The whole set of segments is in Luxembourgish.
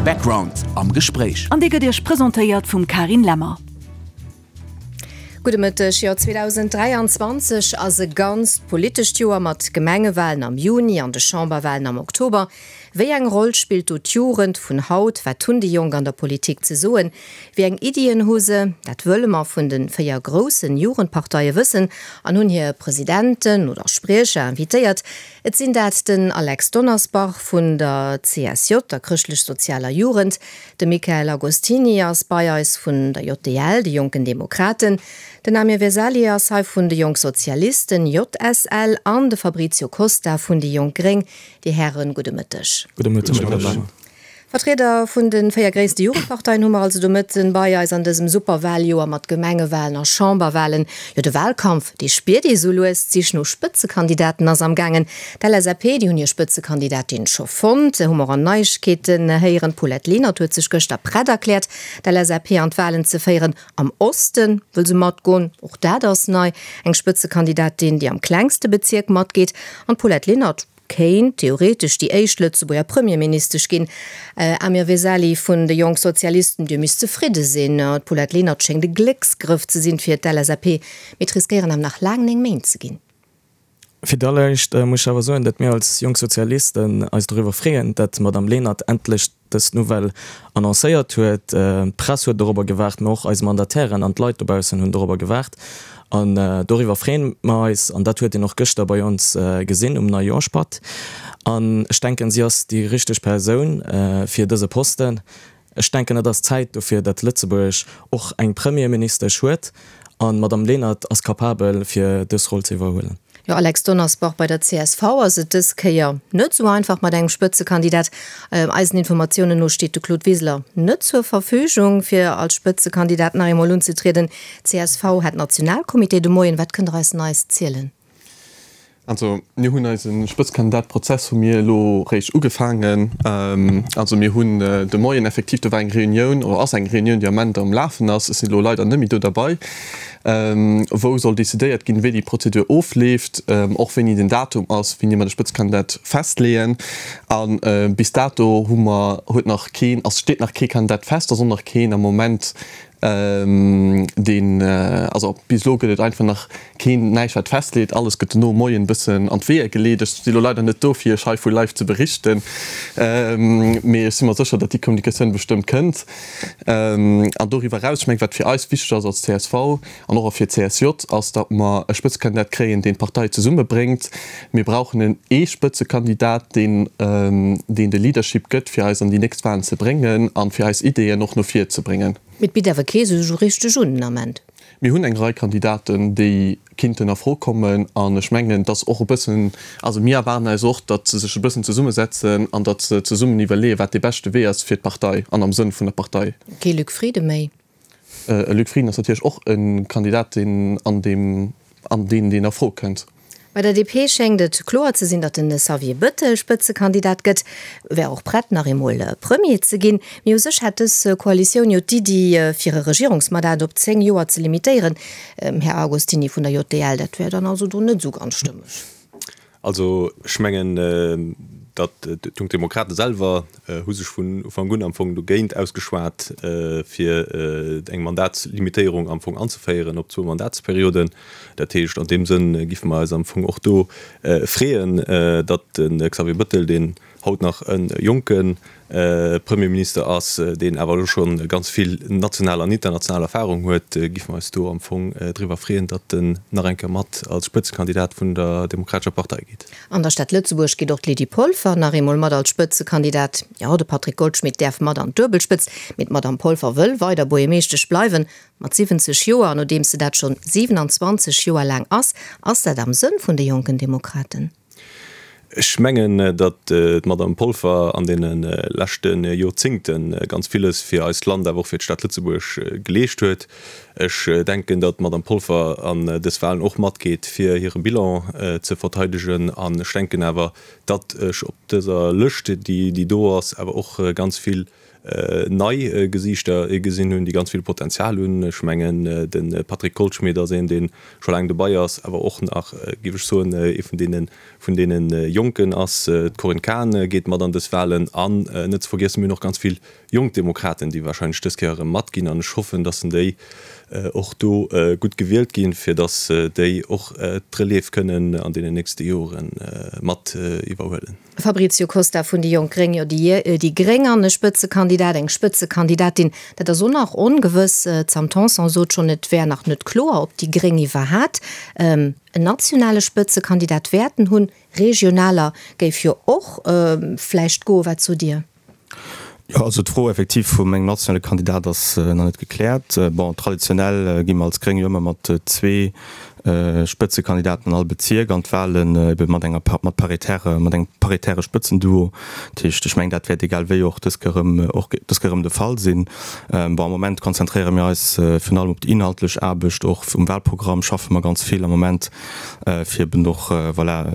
Background am Gespréich. An dee gëtt Iech presentéiert vum Karin Lemmer. Gudde Mëtteg. Jo, 2023 ass e ganzt politescht Joer mat Gemengewalen am Juni an de Chamberwalen am Oktober. Wéi eng Roll spillt do d'Jugend vun haut? Wat hunn déi Jonk an der Politik ze soen? Wéi eng Iddien hu se? Dat wëlle mer vun de 4 groussen Jugendparteie wëssen an hunn hir Presidenten oder Spriecher invitéiert. Et sinn dat den Alex Donnersbach vun der CSJ, der Chrëschtlech-Sozialer Jugend, de Michael Agostini ass bei eis vun der JDL, de Jonken Demokraten, den Amir Vesali ass hei vun de Jonk Sozialisten, JSL, an de Fabrizio Costa vun déi Jonk Gréng. Dir Hären, gudde Mëtteg. Gudde Mëtteg. Vertrieder vun de 4 gréisste Jugendparteien hu mer also de Mëtten bei eis an dësem Superwaljoer mat Gemengewalen a Chamberwalen. Jo, de Walkampf, dee spiert ee sou lues. D'Sich no Spëtzekandidaten ass am gaangen. D'LSAP, déi hunn hir Spëtzekandidatin scho fonnt. Hu mer och Neiegkeeten héieren. D'Paulette Lenert huet sech gëschter prett erkläert, d'LSAP an d'Walen ze féieren. Am Oste wëll se matgoen, och dat ass nei. Eng Spëtzekandidatin, déi am klengste Bezierk matgeet. An d'Paulette Lenert kéint theoretesch déi éischt Lëtzebuerger Premierministesch ginn. Amir Vesali vun de Jonk Sozialisten, Dir misst zefridde sinn. D'Paulette Lenert schéngt e Glécksgrëff ze sinn fir d'LSAP, mee et riskéieren awer nach laang 9 Méint ze ginn. Fir d'alleréischt muss ech awer soen, datt mir als Jonk Sozialisten eis doriwwer freeën, datt d'Madame Lenert endlech dës Nouvelle annoncéiert huet. D'Press huet dorobber gewaart, mä och eis Mandatairen an d'Leit dobaussen hunn dorobber gewaart. An doriwwer freeën mer eis. An dat huet een och gëschter bei ons gesinn um Neijoerschpatt. An ech denken, si ass déi richteg Persoun fir dëse Posten. Ech denken, et ass Zäit dofir, datt Lëtzebuerg och eng Premierministesch huet. An d'Madame Lenert ass capabel, fir dës Roll ze iwwerhuelen. Jo, Alex Donnersbach, bei der csv ass et dës Kéier net esou einfach mat engem Spëtzekandidat. Eisen Informatiounen no steet de Claude Wiseler net zur Verfügung, fir als Spëtzekandidat nach eemol unzetrieden. Csv hat Nationalcomité de Moien. Wat kënnt Der eis Neies zielen? Also mir hunn eise Spëtzekandidat-Prozess hu mir elo réischt ugefaangen. Also mir hunn de Moien effektiv, do war eng Reunioun oder ass eng Reunioun, déi am Ament am Lafen ass, ech sinn elo leider net méi do derbei, wou soll decidéiert ginn, wéi déi Prozedur ofleeft, och wéini den Datum ass, wéini mer de Spëtzekandidat festleeën. A bis dato hu mer, huet nach keen, ass, steet nach kee Kandidat fest, ass och nach keen am Moment, deen, also bis elo gëtt et einfach nach keen, näischt wat festleet, alles gëtt dono Moien e bëssen an d'Weeër geleet. Ech si lo leider net do fir iech hei vu live ze berichten, mee ech si mer sécher, datt déi Kommunikatioun bestëmmt kënnt. An doriwwer eraus, ech mengen, wat fir eis wichteg ass als csv an och fir d'CSJ, ass, datt mer e Spëtzekandidat kréien, deen d'Partei zesummebréngt. Mir brauchen en ee Spëtzekandidat, deen, deen de Leadership gëtt, fir eis an déi nächst Wahlen ze bréngen a fir eis Ideeën och no vir ze bréngen. Mee et bitt awer kee sech esou richteg un den Ament. Mir hunn eng Rei Kandidaten, déi kinnten a Fro kommen. An ech mengen, et ass och e bëssen, also mir erwaarden eis och, datt se sech e bëssen zesummesetzen an datt se zesummen iwwerleeën, wat dee beschte Wee ass fir d'Partei an am Sënn vun der Partei. Kee Luc Frieden méi? E Luc Frieden ass natierlech och e Kandidat, deen an deem, an deen, deen a Fro kënnt. Bei der DP schéngt et kloer ze sinn, datt den Xavier Bëttel Spëtzekandidat gëtt. E wär och prett, nach eemol Premier ze ginn. Mee u sech hätt dës Koalitioun jo d'Iddi, fir e Regierungsmandat op 10 Joer ze limitéieren. Här Agostini vun der JDL, dat wär dann also do net esou ganz stëmmeg. Also ech mengen, datt d'Jonk Demokrate selwer hu sech vun Ufank un am Fong dogéint ausgeschwat, fir eng Mandatslimitéierung am Fong anzeféieren op zwou Mandatsperioden. Dat heescht, an deem Sënn giffe mer eis am Fong och do freeën, datt de Xavier Bëttel, deen haut nach e jonke Premierminister ass, deen awer elo scho ganz vill national an international Erfahrung huet, giffe mer eis do am Fong driwwer freeën, datt en nach eng Kéier mat als Spëtzekandidat vun der Demokratescher Partei geet. An der Stad Lëtzebuerg geet och d'Lydie Polfer nach eemol mat als Spëtzekandidat. Jo, de Patrick Goldschmidt däerf mat an d'Duebelspëtzt, mee d'Madame Polfer wëll weider Buergermeeschtesch bleiwen. Mat 70 Joer, nodeems se dat schonn 27 Joer laang ass, ass dat am Sënn vun de Jonken Demokraten? Ech mengen, datt d'Madame Polfer an deene leschte Joerzéngte ganz villes fir eist Land, awer och fir d'Stad Lëtzebuerg geleescht huet. Ech denken, datt d'Madame Polfer an dës Wahlen och matgeet, fir hire Bilan ze verteidegen. An ech denken awer, datt ech op dëser Lëscht, déi do ass, awer och ganz vill nei Gesiichter gesinn hunn, déi ganz vill Potenzial hunn. Ech mengen, de Patrick Goldschmidt ass een, dee scho laang dobei ass, awer och nach, géif ech soen, ee vun deene, vun deene Jonken ass. D'Corinne Cahen geet mat an dës Wahlen. An net ze vergiessen, mir hunn och ganz vill jonk Demokraten, déi wahrscheinlech dës Kéier erëm matginn. An ech hoffen, dass déi och do gutt gewielt ginn, fir dass déi och d'Relève kënnen an deenen nächste Jore mat iwwerhuelen. Fabrizio Costa vun déi jonk Gréng, Jo, déi Gréng an e Spëtzekandidat, eng Spëtzekandidatin, dat ass och nach ongewëss. D'Sam Tanson sot schonn, et wär nach net kloer, ob déi Gréng iwwerhat en nationale Spëtzekandidat wäerten hunn. Regionaler géif jo och vläicht goen. Wat sot Dir? Jo, also d'Fro effektiv vum engem nationale Kandidat ass nach net gekläert. Bon, traditionell gi mer als Gréng jo ëmmer mat zwee Spëtzekandidaten an all Bezierk an d'Wahlen, ebe mat enger mat paritäre mat engem paritäre Spëtzenduo. Dat heescht, ech mengen, dat wäert egal wéi och dës Kéier erëm och dës Kéier erëm de Fall sinn. Bon, am Moment konzentréiere mir eis virun allem op déi inhaltlech Aarbecht. Och um Wahlprogramm schaffe mer ganz vill am Moment, fir eben och, voilà,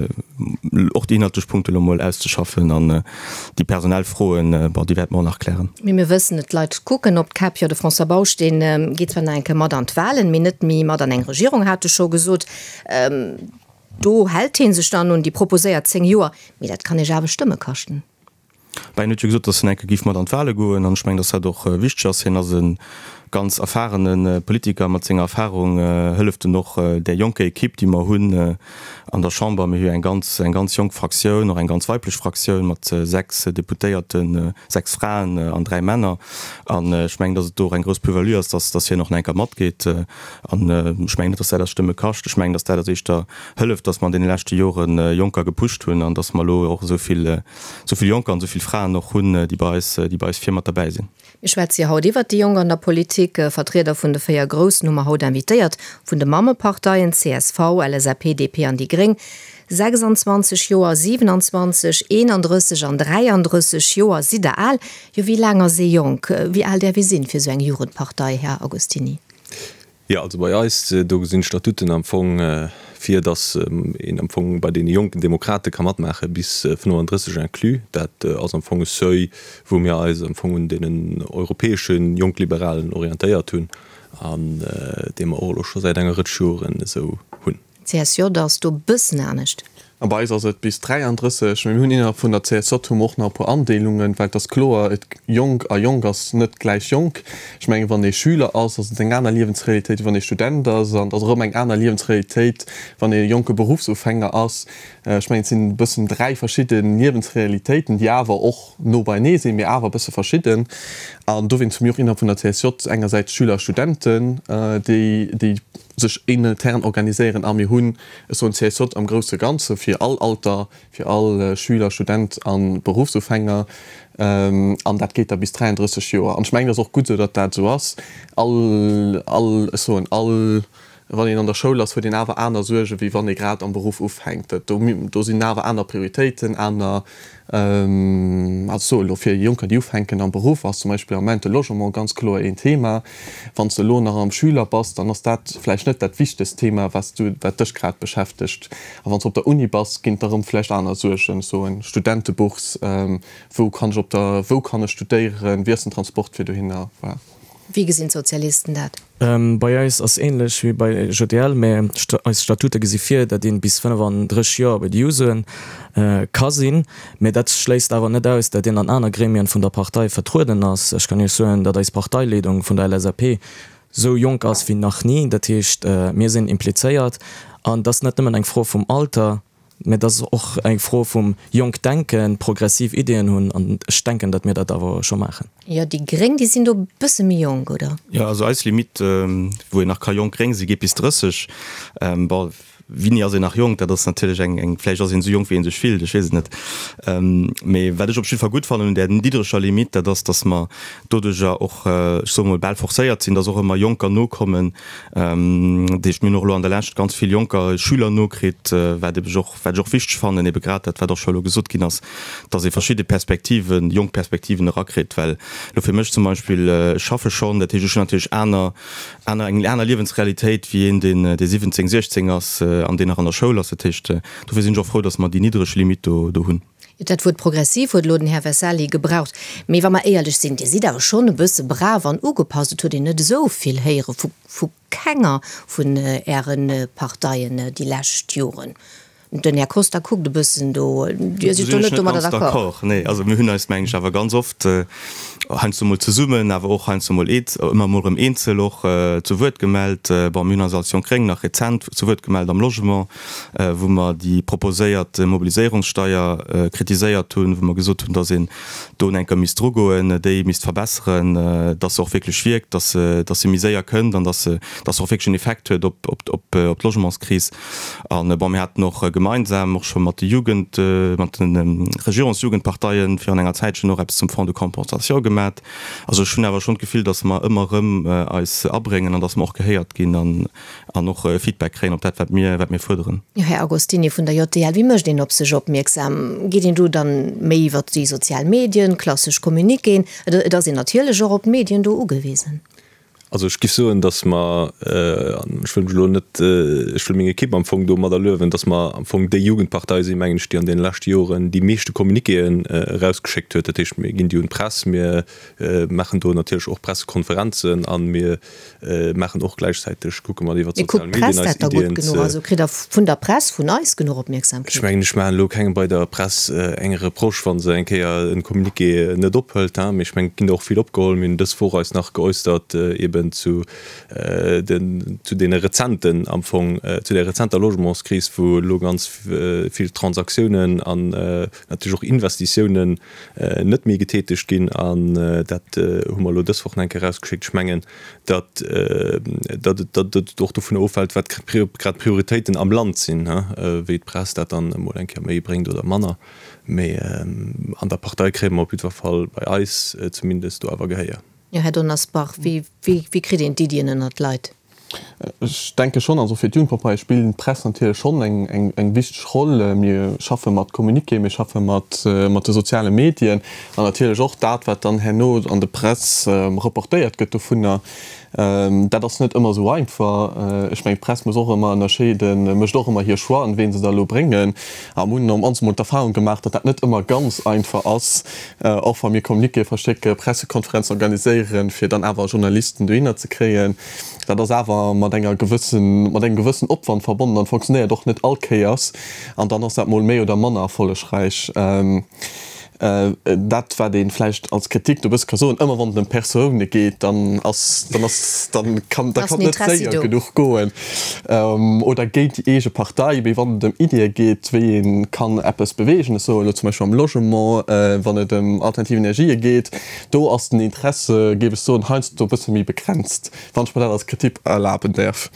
och déi inhaltlech Punkte elo mol auszeschaffen an Déi personell Froen, bon, déi wäerte mer och nach klären. Mee mir wëssen et, d'Leit kucken op d'Käpp. Jo, de François Bausch, dee geet zwar nach eng Kéier mat an d'Wahlen, mee net méi mat an eng Regierung, hat e scho gesot. Do hält hie sech dann un déi proposéiert 10 Joer. Mee dat kann Iech awer Stëmme kaschten. Bah, hien huet jo gesot, datt en eng Kéier géif mat an d'Wahle goen. An ech mengen, datt dat och wichteg ass. Hien ass e ganz erfahrene Politiker. Mat senger Erfahrung hëlleft en och där jonker Equipe, déi mer hunn an der Chamber. Mir hu jo eng ganz, eng ganz jonk Fraktioun, och eng ganz weiblech Fraktioun mat 6 Deputéierten, 6 Fraen an 3 Männer. An ech mengen, datt et do och eng grouss Plus-value ass, datt, datt hien och nach eng Kéier matgeet. An ech mengen net, datt dat eis Stëmme kascht. Ech mengen, datt dat eis éischter hëlleft, datt mer an deene leschte Jore Jonker gepusht hunn an datt mer elo och esou vill, esou vill Jonker an esou vill Fraen och hunn, déi bei eis, déi bei eis vir mat derbäi sinn. Mir schwätze jo haut iwwert déi Jonk an der Politik. Vertrieder vun de 4 Groussen hu mer haut invitéiert, vun de Mammeparteien csv, LSAP, DP an déi Gréng. 26 Joer, 27, 31 an 33 Joer sidd der al. Jo, wéi laang ass ee jonk? Wéi al däerf ee sinn fir esou eng Jugendpartei, Här Agostini? Jo, also bei eis, do gesinn d'Statuten am Fong vir, datt een am Fong bei deene jonken Demokrate ka matmaache bis 35 inclus. Dat ass am Fong e Seuil, wou mir eis am Fong un deenen europäesche Jonk-Liberalen orientéiert hunn an dee mer och elo scho säit enger Rëtsch Joren esou hunn. CSJ ass do bëssen anescht. A bei eis ass et bis 33. Mee mir hunn innerhalb vun der CSJ hu mer och nach e puer Andeelungen, well et ass kloer, et jonk a jonk ass net gläich jonk. Ech mengen, wann ee Schüler ass, ass et eng aner Liewensrealitéit, wéi wann ee Student ass. An et ass erëm eng aner Liewensrealitéit, wann ee jonke Beruffsufänger ass. Ech mengen, et sinn e bëssen dräi verschidde Liewensrealitéiten, déi awer och no beienee sinn, mee awer e bësse verschidden. An dowéinst hu mir och innerhalb vun der CSJ engersäits Schüler a Studenten, déi déi sech intern organiséieren a mir hunn, ech soen CSJ am grousse Ganze fir all Alter, fir all Schüler, Student a Beruffsufänger an dat geet da bis 33 Joer. An ech mengen, et ass och gutt esou, datt dat esou ass. All, all, ech soen all, wann een an der Schoul ass, huet een awer aner Suerge wéi wann ee grad am Beruff ufänkt. Do, do sinn awer aner Prioritéiten, aner Also soe elo fir Jonker, déi ufänken am Beruff, ass zum Beispill am Moment de Logement ganz kloer een Thema. Wann s de elo nach am Schüler bass, dann ass dat vläicht net dat wichtegst Thema, wat s du, wat dech grad beschäftegt. A wann s de op der Uni bass, ginn et erëm vläicht aner Suergen, ech soen Studentebourse, wou kann ech op der, wou kann ech studéieren, wéi ass den Transport fir dohinner, voilà. Wéi gesinn d'Sozialisten dat? Bei eis ass ähnlech wéi bei JDL, mä eis Statute gesi vir, datt een bis 35 Joer bei de Jusoen ka sinn. Mä dat schléisst awer net aus, datt een an aner Gremien vun der Partei vertrueden ass. Ech kann Iech soen, datt eis Parteileedung vun der LSAP esou jonk ass wéi nach ni. Dat heescht, mir sinn implizéiert an et ass net nëmmen eng Fro vum Alter. Mä et ass och eng Fro vum jonk denken, progressiv Ideeën hunn an ech denken, datt mir dat awer scho maachen. Jo, déi Gréng, déi sinn do e bësse méi jonk, oder? Jo, also eis Limite, wou een nach ka jonk gréng sinn, geet bis 30. Bon, Wéini ass een nach jonk? Dat ass natierlech eng, eng, vläicht ass een esou jonk, wéi ee sech fillt, ech weess et net. Mee wat ech op jidde Fall gutt fannen un där niddreger Limitt, dat ass, datt mer doduerjer och, ech soe mol, bal forcéiert sinn, datt och ëmmer Jonker nokommen. Dat heescht, mir hunn och elo an der Lescht ganz vill Jonker, Schüler nokritt, wat ebe och, wat ech och wichteg fannen, ebe grad dat, wat och scho elo gesot ginn ass, datt ee verschidde Perspektiven, jonk Perspektiven erakritt. Well elo fir mech zum Beispill, ech schaffe schonn, dat heescht, ech hunn natierlech aner, aner, eng aner Liewensrealitéit wéi een, deen, dee 17, 16 ass an deen nach an der Schoul ass. Dat heescht, dofir sinn ech och frou, datt mer déi niddreg Limitt do, do hunn. Dat Wuert progressiv huet elo den Här Vesali gebraucht. Mee wa mer éierlech sinn, Dir sidd awer schonn e bësse brav an ugepasst. Et huet een net esou vill héiere vu vu kenger vun Äre Parteien déi lescht Joren. Den Här Costa kuckt e bëssen do. Dir sidd do net domadder d'accord? Nee, also mir hunn eis, mengen ech, awer ganz oft, heiansdo mol zesummen, awer och heiansdo mol ëmmer mol erëm eenzel och zu Wuert gemellt. Bon, mir hunn eis als Jonk Gréng nach rezent zu Wuert gemellt am Logement, wou mer déi proposéiert Mobiliséierungssteier kritiséiert hunn, wou mer gesot hunn, dass een do enker misst drugoen, déi misst verbesseren, dass se och wierklech wierkt, dass se, dass se méi séier kënnt an dass se, dass se och wierklech en Effekt huet op, op, op d'Logementskris. An, bon, mir haten och gemeinsam och scho mat de Jugend, mat de Regierungsjugendparteien virun enger Zäitchen och eppes zum Fonds de compensation gemat. Also ech hunn awer schonn d'Gefill, dass mer ëmmer erëm eis abréngen an dass mer och gehéiert ginn an, an och Feedback kréien op dat, wat mir, wat mir fuerderen. Jo, Här Agostini vun der JDL, wéi mécht een op sech opmierksam? Geet een do dann méi iwwert déi sozial Medien, klassesch Communiquéen? Et ass een natierlech och op d'Medien do ugewisen. Also ech giff soen, datt mer, an ech wëll mech elo net, ech wëll meng Ekipp am Fong domadder luewen, datt mer am Fong déi Jugendpartei sinn, mengen ech, déi an deene leschte Joren déi meeschte Communiquéen erausgeschéckt huet. Dat heescht, mir ginn déi un d'Press, mir maachen do natierlech och Pressekonferenzen a mir maachen och gläichzäiteg, kucke mer iwwer d'sozial Medien eis Iddien ze. Also kritt Der vun der Press, vun eis genuch Opmierksamkeet? Ech mengen, ech maachen elo kengem bei der Press eng Reproche, wa se eng Kéier e Communiqué net ophëlt. Mee ech mengen, et ginn der och vill opgeholl. Mir hunn dës Woch eis nach geäusstert eeben zu den, zu deene rezenten am Fong, zu där rezenter Logementskris, wou elo ganz vill Transaktiounen an natierlech och Investitiounen net méi getätegt ginn. An dat hu mer elo dës Woch nach eng Kéier erausgeschéckt. Ech mengen, datt datt et och dovun ofhält, wat grad d'Prioritéiten am Land sinn, wéi d'Press dat dann emol eng Kéier méi bréngt oder manner. Mee an der Partei kréie mer op jiddwer Fall, bei eis zumindest, do awer Gehéier. Jo, Här Donnersbach, wéi kritt een d'Iddien ënnert d'Leit? Ech denke schonn, also fir d'Jugendpartei spillt d'Press natierlech schonn eng wichteg Roll. Mir schaffe mat Communiquéen, mir schaffe mat de soziale Medien an natierlech och dat, wat dann herno an de Press reportéiert gëtt dovunner. Dat ass net ëmmer esou einfach. Ech mengen, d'Press muss och ëmmer ënnerscheeden, mécht och ëmmer hir Choixen, ween se da elo bréngen. A mir hunn am mol d'Erfahrung gemaach, datt dat net ëmmer ganz einfach ass, och wa mir Communiquéë verschécken, Pressekonferenzen organiséieren, fir dann awer Journalisten dohinner ze kréien. Dat ass awer mat enger gewëssen, mat engem gewëssen Opwand verbonnen an fonctionnéiert och net all Kéiers. An dann ass dat mol méi oder manner erfollegräich. Dat, wat ee vläicht als Kritik do e bësse ka soen, ëmmer wann et ëm Persoune geet, dann ass, dann ass, dann kann, da kann et net séier genuch goen oder géint déi eege Partei. Mee wann et ëm Iddie geet, wéi ee kann eppes beweegen, ech soen elo zum Beispill am Logement, wann et ëm alternativ Energië geet, do ass den Interesse, géif ech soen, heiansdo e bësse méi begrenzt, wann ech mer dat als Kritik erlaben däerf.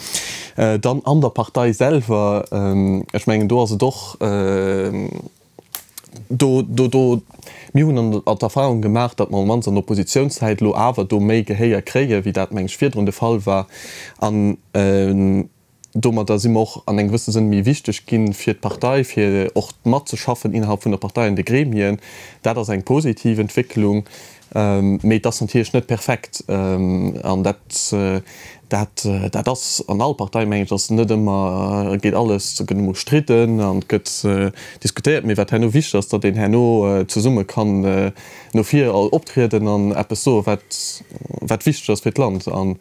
Dann an der Partei selwer, ech mengen, do ass et och, do, do, do, mir hunn an d'Erfahrung gemaach, datt mer am mannst an der Oppositionszäit elo awer do méi Gehéier kréien, wéi dat, meng ech, virdrun de Fall war. An domadder si mer och an engem gewëssene Sënn méi wichteg gi fir d'Partei, fir och matzeschaffen innerhalb vun der Partei an de Gremien. Dat ass eng positiv Entwécklung. Mee et ass natierlech net perfekt. An dat, dat, dat ass an all Partei, mengen ech, ass net ëmmer, geet alles, gëtt emol stridden an et gëtt diskutéiert. Mee wat herno wichteg ass, datt een herno zesumme kann no vir optrieden an eppes soen, wat, wat wichteg ass fir d'Land. An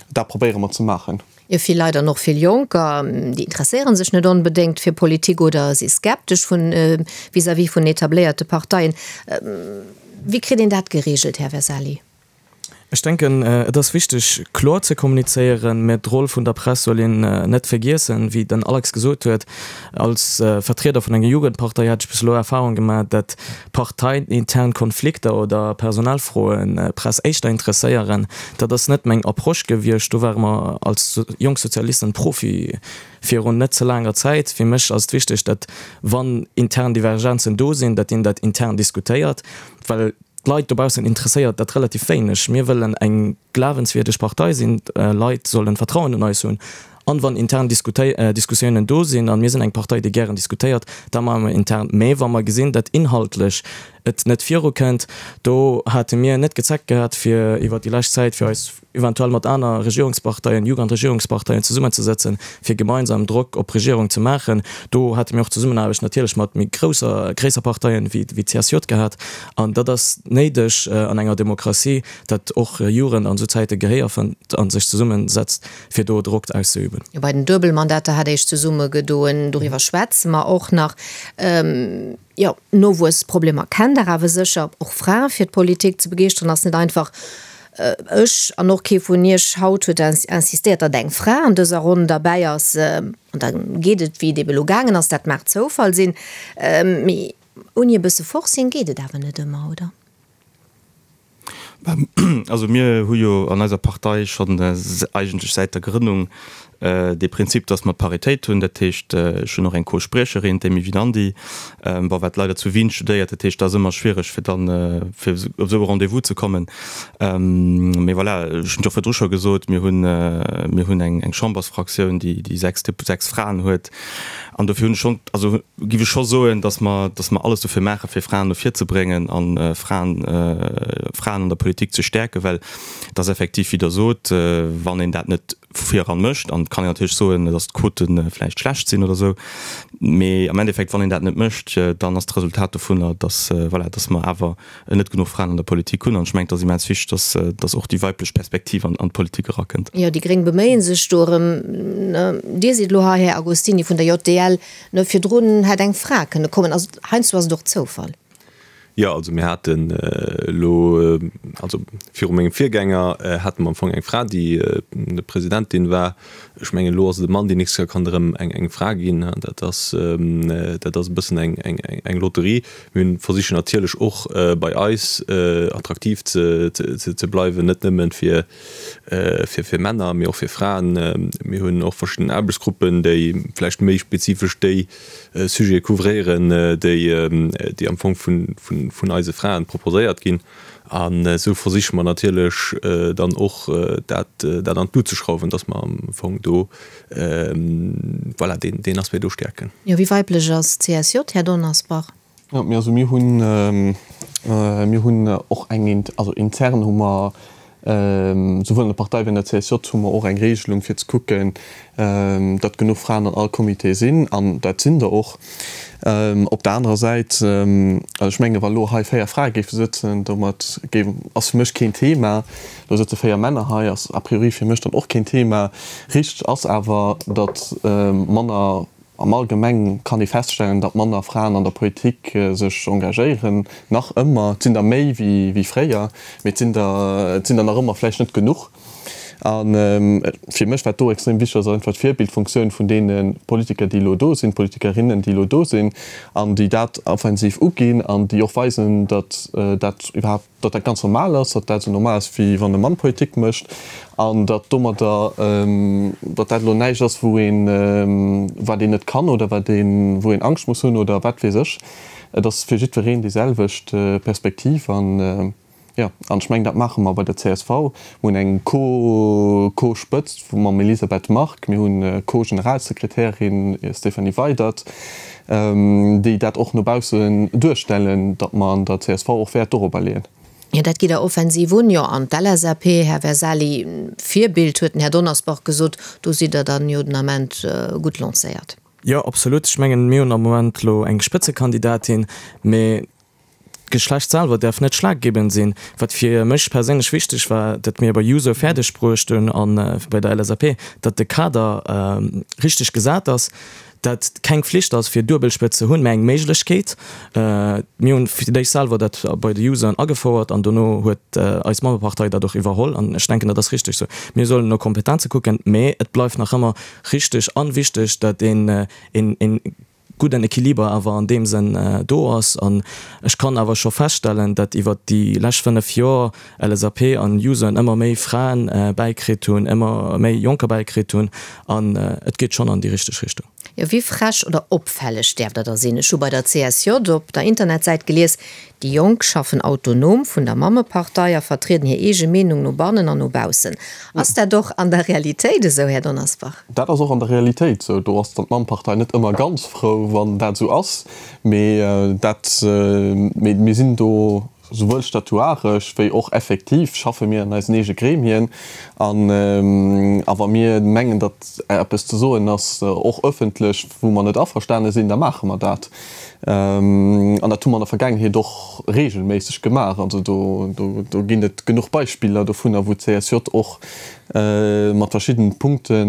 dat probéiere mer ze maachen. Jo, vill Leit an och vill Jonker, déi interesséiere sech net onbedéngt fir Politik oder si skeptesch vun vis-à-vis vun etabléierte Parteien. Wéi kritt een dat gereegelt, Här Vesali? Ech denken, et ass wichteg, kloer ze kommunizéieren, mä d'Roll vun der Press soll een net vergiessen. Wéi den Alex gesot huet, als Vertrieder vun enger Jugendpartei hat ech bis elo Erfahrung gemaach, datt parteiintern Konflikter oder Personalfroen d'Press éischter interesséieren. Dat ass net meng Approche gewiescht. Do ware mer als Jonk Sozialisten Profi virun net ze laanger Zäit. Fir mech ass et wichteg, datt wann intern Divergenzen do sinn, datt een dat intern diskutéiert, well D'Leit dobaussen interesséiert dat relativ wéineg. Mir wëllen eng glawenswierdeg Partei sinn, d'Leit sollen Vertrauen un eis hunn. An wann intern Diskussiounen do sinn, an mir sinn eng Partei déi gären diskutéiert, da maache mer intern. Mä wa mer gesinn, datt inhaltlech et net virukënnt, do hate mir net gezeckt gehat fir iwwert déi lescht Zäit fir eis eventuell mat aner Regierungsparteien, Jugendregierungsparteien zesummenzesëtzen, fir gemeinsam Drock op d'Regierung ze maachen. Do hate mir och Zesummenaarbecht natierlech mat méi grousser, gréisser Parteien wéi wéi d'CSJ gehat. An dat ass néideg an enger Demokratie, datt och Jugend an esou Zäite Gehéier fënnt a sech zesummesetzt, fir do Drock auszeüben. Jo, bei den Duebelmandater hat Iech zesummegedoen. Doriwwer schwätze mer och nach. Jo, Nowuessproblemer kennt Der awer sécher. Och Frae fir d'Politik ze begeeschteren ass net einfach. Ech an och kee vun Iech haut huet insistéiert, datt eng Fra an dëser Ronn derbäi ass. An da geet et, wéi et ebe lo gaangen ass. Dat mag Zoufall sinn, mee ouni e bësse Forcing geet et awer net ëmmer, oder? Also mir hu jo an eiser Partei schonn eigentlech säit der Grënnung dee Prinzip, datt mer Paritéit hunn. Dat heescht, ech hunn och eng Co-Spriecherin, d'Amy Winandy, bon, wat leider zu Wien studéiert. Dat heescht, dat ass ëmmer schwiereg, fir dann fir op esou e Rendez-vous ze kommen. Mee voilà, ech hunn et jo virdru scho gesot, mir hunn, mir hunn eng Chambersfraktioun, déi 6 Fraen huet. An dofir hunn ech schonn, also giff ech scho soen, dass mer, dass mer alles dofir maachen, fir Fraen no vir ze bréngen a Fraen, Fraen an der Politik ze stäerken, well et ass effektiv, wéi Der sot, wann een dat net vu vir eran mécht, an et kann een natierlech soen, dass d'Quote vläicht schlecht sinn oder esou, mee am Endeffekt, wann een dat net mécht, dann ass d'Resultat dovunner, dass, voilà, dass mer awer net genuch Fraen an der Politik hunn. An ech mengen, et ass immens wichteg, dass, dass och déi weiblech Perspektiv an, an d'Politik erakënnt. Jo, déi Gréng beméie sech do erëm. Dir sidd elo hei, Här Agostini vun der JDL. Ne, virdrun hätt eng Fra kënne kommen. Also heiansdo ass et och Zoufall. Jo, also mir haten elo, also viru mengem Virgänger hate mer am Fong eng Fra, déi Presidentin war. Ech mengen, elo ass et e Mann, déi nächst Kéier kann et erëm eng Fra ginn. Dat ass, dat ass e bëssen eng Lotterie. Mir hunn versichen natierlech och bei eis attraktiv ze bleiwen, net nëmmen fir fir Männer, mee och fir Fraen. Mir hunn och verschidden Aarbechtsgruppen, déi vläicht méi spezifesch déi Sujete couvréieren, déi am Fong vun eise Fraen proposéiert ginn. An esou versiche mer natierlech dann och dat an d'Lut ze schrauwen, dass mer am Fong do, voilà, deen Aspect do stäerken. Jo, wéi weiblech ass d'CSJ, Här Donnersbach? Jo, mir, also mir hunn, mir hunn och eng, also intern hu mer souwuel an der Partei wéi an der CSJ hu mer och eng Regelung fir ze kucken, datt genuch Fraen an all Comité sinn, an dat sinn der och. Op der anerer Säit, also ech menge wa lo hei 4 Frae géife sëtzen, domat géif, ass fir mech keen Thema. Lo sëtze 4 Männer hei, ass a priori fir mech dann och keen Thema. Richteg ass awer, datt manner Am Allgemeng kann ee feststellen, datt manner Fraen an der Politik sech engagéieren, nach ëmmer. Et sinn der méi wéi fréier, mee et sinn der, et sinn der nach ëmmer vläicht net genuch. A fir mech, wat do extrem wichteg ass, ass einfach d'Virbildfunktioun vun deene Politiker, déi elo do sinn, Politikerinnen, déi elo do sinn an déi dat offensiv uginn an déi och weisen, datt dat iwwerhaapt, datt dat ganz normal ass, datt dat esou normal ass, wéi wann e Mann Politik mécht an datt domadder, datt dat elo näischt ass, wou een, wat een net kann oder wat een, wou een Angscht muss hunn oder wat weess ech. Et ass fir jiddwereen déi selwecht Perspektiv an, jo, an ech mengen, dat maache mer bei der csv. Mir hunn eng Co, Co-Spëtzt mam Elisabeth Margue, mir hunn Co-Generalsekretärin Stéphanie Weydert, déi dat och no baussen duerstellen, datt mer an der csv och Wäert dorobber leeën. Jo, dat geet der offensiv un. Jo, an d'LSAP, Här Versali, Virbild huet den Här Donnersbach gesot, do sidd Der dann jo den Ament gutt lancéiert. Jo, absolut. Ech mengen, mir hunn am Moment elo eng Spëtzekandidatin, mee D'Geschlecht selwer däerf net schlaggebend sinn. Wat fir mech perséinlech wichteg war, datt mir bei Juso fäerdeg bruecht hunn a bei der LSAP, datt de Kader richteg gesat ass. Dat keng Flicht ass fir Duebelspëtz ze hunn, mä eng Méiglechkeet. Mir hunn fir d'éischt selwer dat bei de Useren agefouert an dono huet eis Mammepartei dat och iwwerholl an ech denken, dat ass richteg esou. Mir sollen no Kompetenze kucken, mä et bleift nach ëmmer richteg an wichteg, dat een een gudden Equiliber awer an deem Sënn do ass. An ech kann awer scho feststellen, dat iwwert déi lescht 5 Joer LSAP an Useren ëmmer méi Fraen bäikritt hunn, ëmmer méi Jonker bäikritt hunn an et geet schonn an déi richteg Richtung. Jo, wéi frech oder opfälleg däerf der da sinn? Ech hu bei der CSJ op der Internetsäit gelies, Déi Jonk schaffen autonom vun der Mammepartei a vertrieden hir eege Meenung no bannen an no baussen. Ass dat och an der Realitéit esou, Här Donnersbach? Dat ass och an der Realitéit esou. Do ass dann d'Mammepartei net ëmmer ganz frou, wann dat esou ass. Mee dat, mee mir sinn do souwuel statuaresch wéi och effektiv schaffe mir an eisen eege Gremien. An a wa mir mengen, datt eppes ze soen ass, och ëffentlech, wou mer net averstane sinn, da maache mer dat. An dat hu mer an der Vergaangenheet och regelméisseg gemaach. Also do, do, do ginn et genuch Beispiller dovunner, wou d'CSJ och mat verschiddenen Punkte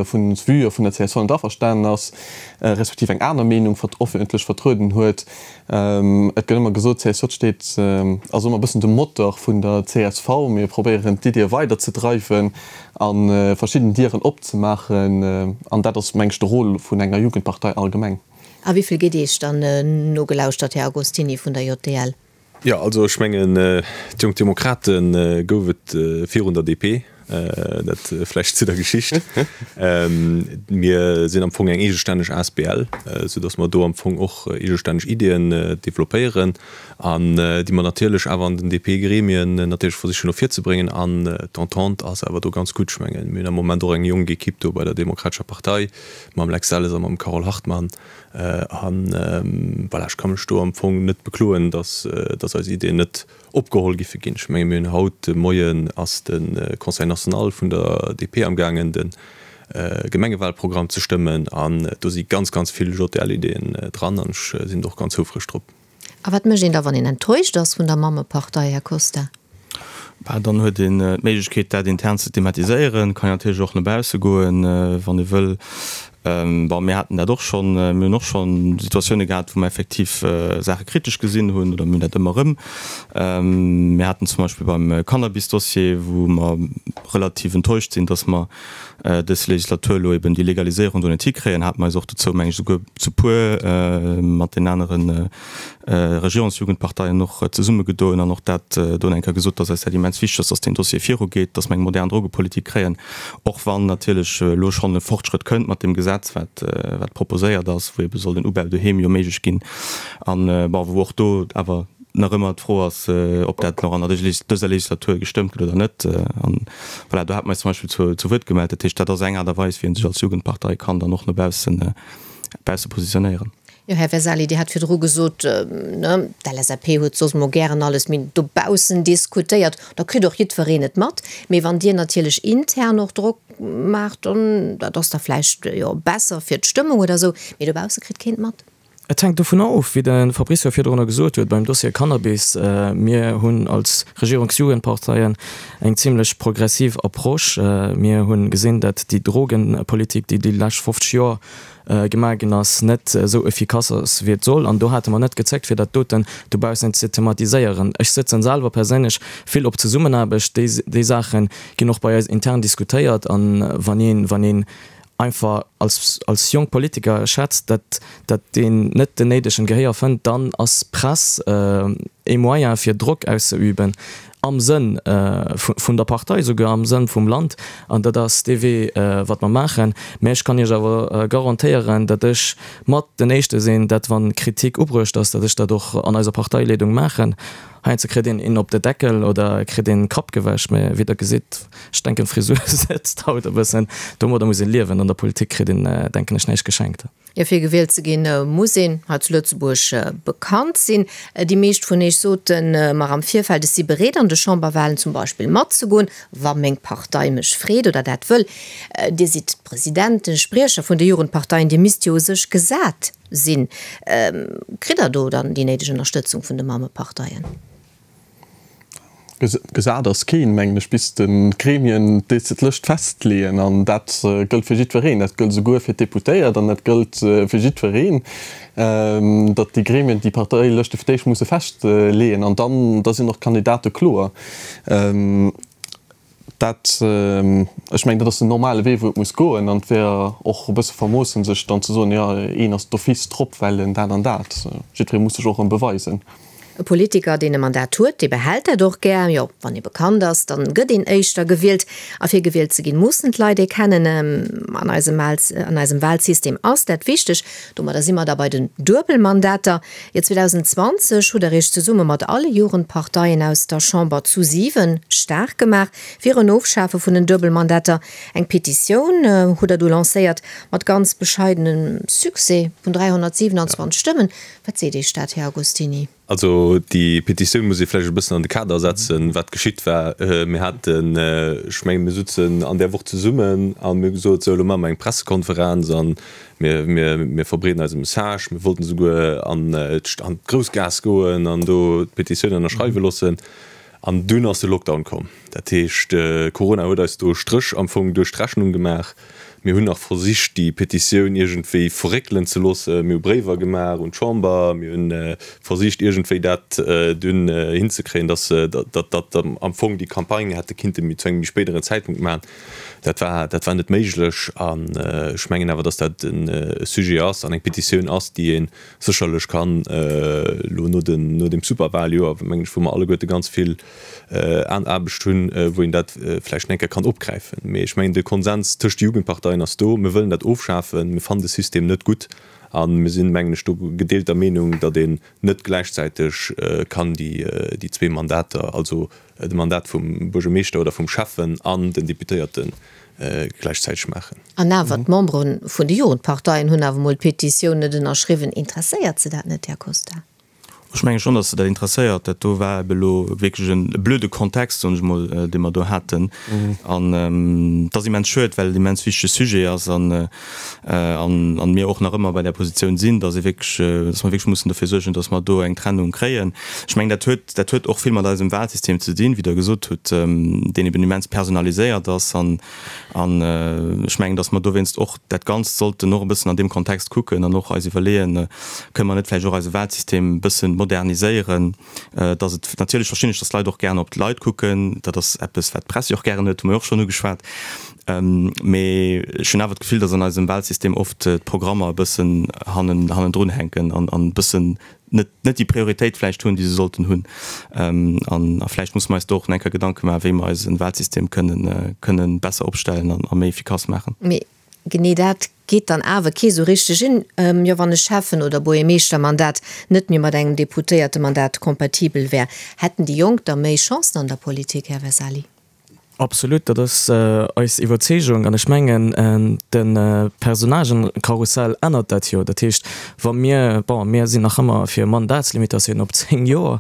vun Vueë vun der csv net averstanen ass, respektiv eng aner Meenung öffentlech vertrueden huet. Et gëtt ëmmer gesot, d'CSJ steet, ass ëmmer e bëssen de Motor vun der csv. Mir probéieren d'Iddie weiderzedreiwen a verschidden Dieren opzemaachen. An dat ass, meng ech, de Rôle vun enger Jugendpartei allgemeng. A wéi vill gitt Iech dann nogelauschtert, Här Agostini vun der JDL? Jo, also ech mengen, d'Jonk Demokrate gouf et virun der DP, dat vläicht zu der Geschicht. Mir sinn am Fong eng eegestänneg asbl, soudass mer do am Fong och eegestänneg Ideeën developpéieren an déi mer natierlech awer an den DP-Gremien natierlech versichen och virzebréngen. An d'Entente ass awer do ganz gutt. Ech mengen, mir hunn am Moment och eng jonk Equipe do bei der Demokratescher Partei, mam Lex Delles a mam Carole Hartmann. An voilà, ech ka mech do am Fong net bekloen, dass, dass eis Ideeën net opgeholl giffe ginn. Ech menge mir hunn haut de Moien ass de Conseil national vun der DP amgaangen de Gemengewalprogramm ze stëmmen an do si ganz, ganz vill JDL-Ideeën dran an ech sinn do och ganz houfreg drop. A wat mécht een da, wann een enttäuscht ass vun der Mammepartei, Här Costa? Bah, dann huet een d'Méiglechkeet, dat intern ze thematiséieren, kann natierlech och no bausse goen, wann ee wëll. Bon, mir haten dat och schonn, mir hunn och schonn Situatioune gehat, wou mer effektiv Saache kritesch gesinn hunn, oder mir hunn dat ëmmer erëm. Mir haten zum Beispill beim Cannabis-Dossier, wou mer relativ enttäuscht sinn, datt mer dës Legislatur elo eben déi Legaliséierung do net hikréien, hate mer eis och dozou, meng ech, esouguer zu puer mat den anere Regierungsjugendparteien och zesummegedoen an och dat do eng Kéier gesot, dass eis dat immens wichteg ass, dass deen Dossier virugeet, dass mer eng modern Drogepolitik kréien, och wann natierlech elo schonn e Fortschrëtt kënnt mat deem Gesetz, wat wat proposéiert ass, wou ebe soll den Ubau doheem jo méiglech ginn an, bon, wou och do awer nach ëmmer d'Fro ass, ob dat nach an der dëser Legislatur gestëmmt gëtt oder net. An voilà, do hate mer eis zum Beispill zu, zu Wuert gemellt. Dat heescht, dat ass eng Aart a Weis, wéi ee sech als Jugendpartei kann dann och no baussen, bausse positionéieren. Jo, Här Vesali, Dir hat virdru gesot, ne, d'LSAP huet soss emol gären alles méi dobaussen diskutéiert. Da kritt och jiddwereen et mat. Mee wann Dir natierlech intern och Drock maacht, dann, dat ass da vläicht, jo, besser fir d'Stëmmung oder esou, mee dobausse kritt keen et mat. Et hänkt dovunner of, wéi de Fabrizio virdrunner gesot huet, beim Dossier Cannabis, mir hunn als Regierungsjugendparteien eng zimlech progressiv Approche. Mir hu gesinn, datt déi Drogenpolitik, déi déi lescht 50 Joer gemaach ginn ass, net esou efficace ass, wéi et soll. An do hate mer net gezéckt, fir dat doten dobaussen ze thematiséieren. Ech sëtzen selwer perséinlech vill op Zesummenaarbecht. Déi, déi Saache ginn och bei eis intern diskutéiert. An wann een, wann een einfach als, als jonk Politiker schätzt, dat, dat deen net den néidegen Gehéier fënnt, dann ass Press ee Moyen fir Drock auszeüben, am Sënn vun der Partei, souguer am Sënn vum Land. An dat ass dee Wee, wat mer maachen. Mä ech kann Iech awer garantéieren, dat ech mat den Éischte sinn, dat wann Kritik ubruecht ass, dat ech dat och an eiser Parteileedung maachen. Heiansdo kritt een een op de Deckel oder kritt een Kapp gewäsch, mä wéi der gesitt, ech denken d'Frisur sëtzt haut e bëssen. Domadder muss een liewen. An der Politik kritt een, denken ech, näischt geschenkt. Jo, fir gewielt ze ginn, muss een hei zu Lëtzebuerg bekannt sinn. Déi meescht vun iech sote mer am Virfeld, ech si bereet an de Chamberwahlen zum Beispill matzegoen, wa meng Partei mech freet oder dat wëll. Dir sidd d'Presidenten, Spriecher vun de Jugendparteien, Dir misst jo u sech gesat sinn. Kritt Der do dann déi néideg Ënnerstëtzung vun de Mammeparteien? Gesat ass keen, mengen ech, bis d'Gremien d'Lëscht festleeën. An dat gëllt fir jiddwereen. Dat gëllt esouguer fir d'Deputéiert an dat gëllt fir jiddwereen, datt déi Gremien déi Parteilëschte fir d'éischt musse festleeën an dann, da sinn och d'Kandidate kloer. Dat, ech mengen, dat ass den normale Wee, wou et muss goen. An et wär och e bësse vermoossen, sech dann ze soen, jo, een ass d'office drop, well en dat an dat. Jiddweree muss sech och erëm beweisen. E Politiker, deen e Mandat huet, dee behält dat och gär. Jo, wann ee bekannt ass, dann gëtt een éischter gewielt. A fir gewielt ze ginn, mussen d'Leit ee kennen. An eisem an eisem Wahlsystem ass dat wichteg. Domadder si mer da bei den Duebelmandater. Jo, 2020 hutt der Iech zesumme mat alle Jugendparteien aus der Chamber zu 7 staark gemaach fir en Ofschafe vun den Duebelmandater. Eng Petitioun hutt der du lancéiert, mat ganz bescheidenem Succès vun 327 Stëmmen. Wat seet Iech dat, Här Agostini? Also déi Petitioun muss ee vläicht e bëssen an de Kader setzen, wat geschitt war. Mir haten, ech mengen, mir sutzen an där Woch zesummen a mir hu gesot, sou elo maache mer eng Pressekonferenz a mir, mir, mir verbreeden eise Message. Mir wollten esouguer an d'Groussgaass goen an do d'Petitioun ënnerschreiwe loossen. An dunn ass de Lockdown komm. Dat heescht, Corona huet eis do e Stréch am Fong duerch d'Rechnung gemaach. Mir hunn nach versicht, déi Petitioun iergendwéi verréckelen ze loossen. Mir hu Bréiwer gemaach un d'Chamber. Mir hu versicht, iergendwéi dat dunn hinzekréien, dass datt am Fong déi Campagne hätte kinnte zu engem méi spéideren Zäitpunkt maachen. Dat war, dat war net méiglech. An ech mengen awer, dass dat e Sujet ass an eng Petitioun ass, déi ee sécherlech kann elo no den, no dem Superwahljoer, mengen ech, wou mer alleguerte ganz vill an Aarbecht hunn, wou een dat vläicht eng Kéier kann opgräifen. Mee ech mengen, de Konsens tëscht de Jugendparteien ass do, Mir wëllen dat ofschafen, mir fannen de System net gutt a mir sinn, mengen ech, do gedeelter Meenung, datt een net gläichzäiteg kann déi, déi zwee Mandater, also de Mandat vum Buergermeeschter oder vum Schäffen an den Deputéierte gläichzäiteg maachen. An awer, d'Membere vun de Jugendparteien hunn awer emol d'Petitioun net ënnerschriwwen. Interesséiert se dat net, Här Costa? Ech menge schonn, datt se dat interesséiert. Dat do war ebe elo wierklech e blöde Kontext, soen ech emol, dee mer do haten. An et ass immens schued, well et immens wichtege Sujet ass an an mir och nach ëmmer bei där Positioun sinn, datt ee wierklech, datt mer wierklech mussen dofir suergen, datt mer do eng Trennung kréien. Ech mengen, dat huet, dat huet och vill mat eisem Wahlsystem ze dinn, wéi Der gesot hutt, deen eben immens personaliséiert ass. An an ech mengen, datt mer dowéinst och dat Ganzt sollten och e bëssen an deem Kontext kucken an och eis iwwerleeën, Kënne mer net vläicht och eise Wahlsystem e bëssen moderniséieren, datt et, natierlech verstinn ech, datt d'Leit och gären op d'Leit kucken, dat ass eppes, wat d'Press jo och gären huet, hu mer jo och schonn ugeschwat, mee ech hunn awer d'Gefill, datt an eisem Wahlsystem oft d'Programmer e bëssen hannen, hannendrun hänken an e bëssen net, net déi Prioritéit vläicht hunn, déi se sollten hunn. An a vläicht musse mer eis do och nach eng Kéier Gedanke maachen, wéi mer eise Wahlsystem kënnen, kënnen besser opstellen an a méi efficace maachen. Mee genee dat geet dann awer kee sou richteg un. Jo, wann e Schäffen oder Buergermeeschtermandat net méi mat engem Deputéiertemandat kompatibel wär, hätten déi Jonk da méi Chancen an der Politik, Här Vesali? Absolut, dat ass eis Iwwerzeegung. An ech mengen, de Personnagenkarussell ännert dat jo. Dat heescht, wa mir, bon, mir sinn nach ëmmer fir Mandatslimitatioun op 10 Joer,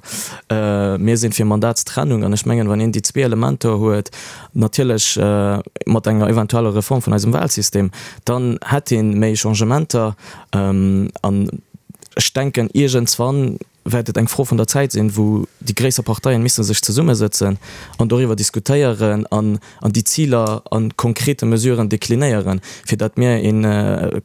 mir sinn fir Mandatstrennung. An ech mengen, wann een déi zwee Elementer huet, natierlech mat enger eventueller Reform vun eisem Wahlsystem, dann hätt ee méi Changementer. An ech denken, iergendswann wäert et eng Fro vun der Zäit sinn, wou déi gréisser Parteien misse sech zesummesëtzen an doriwwer diskutéieren an an déi Ziler a konkrete Mesuren deklinéieren, fir datt mir e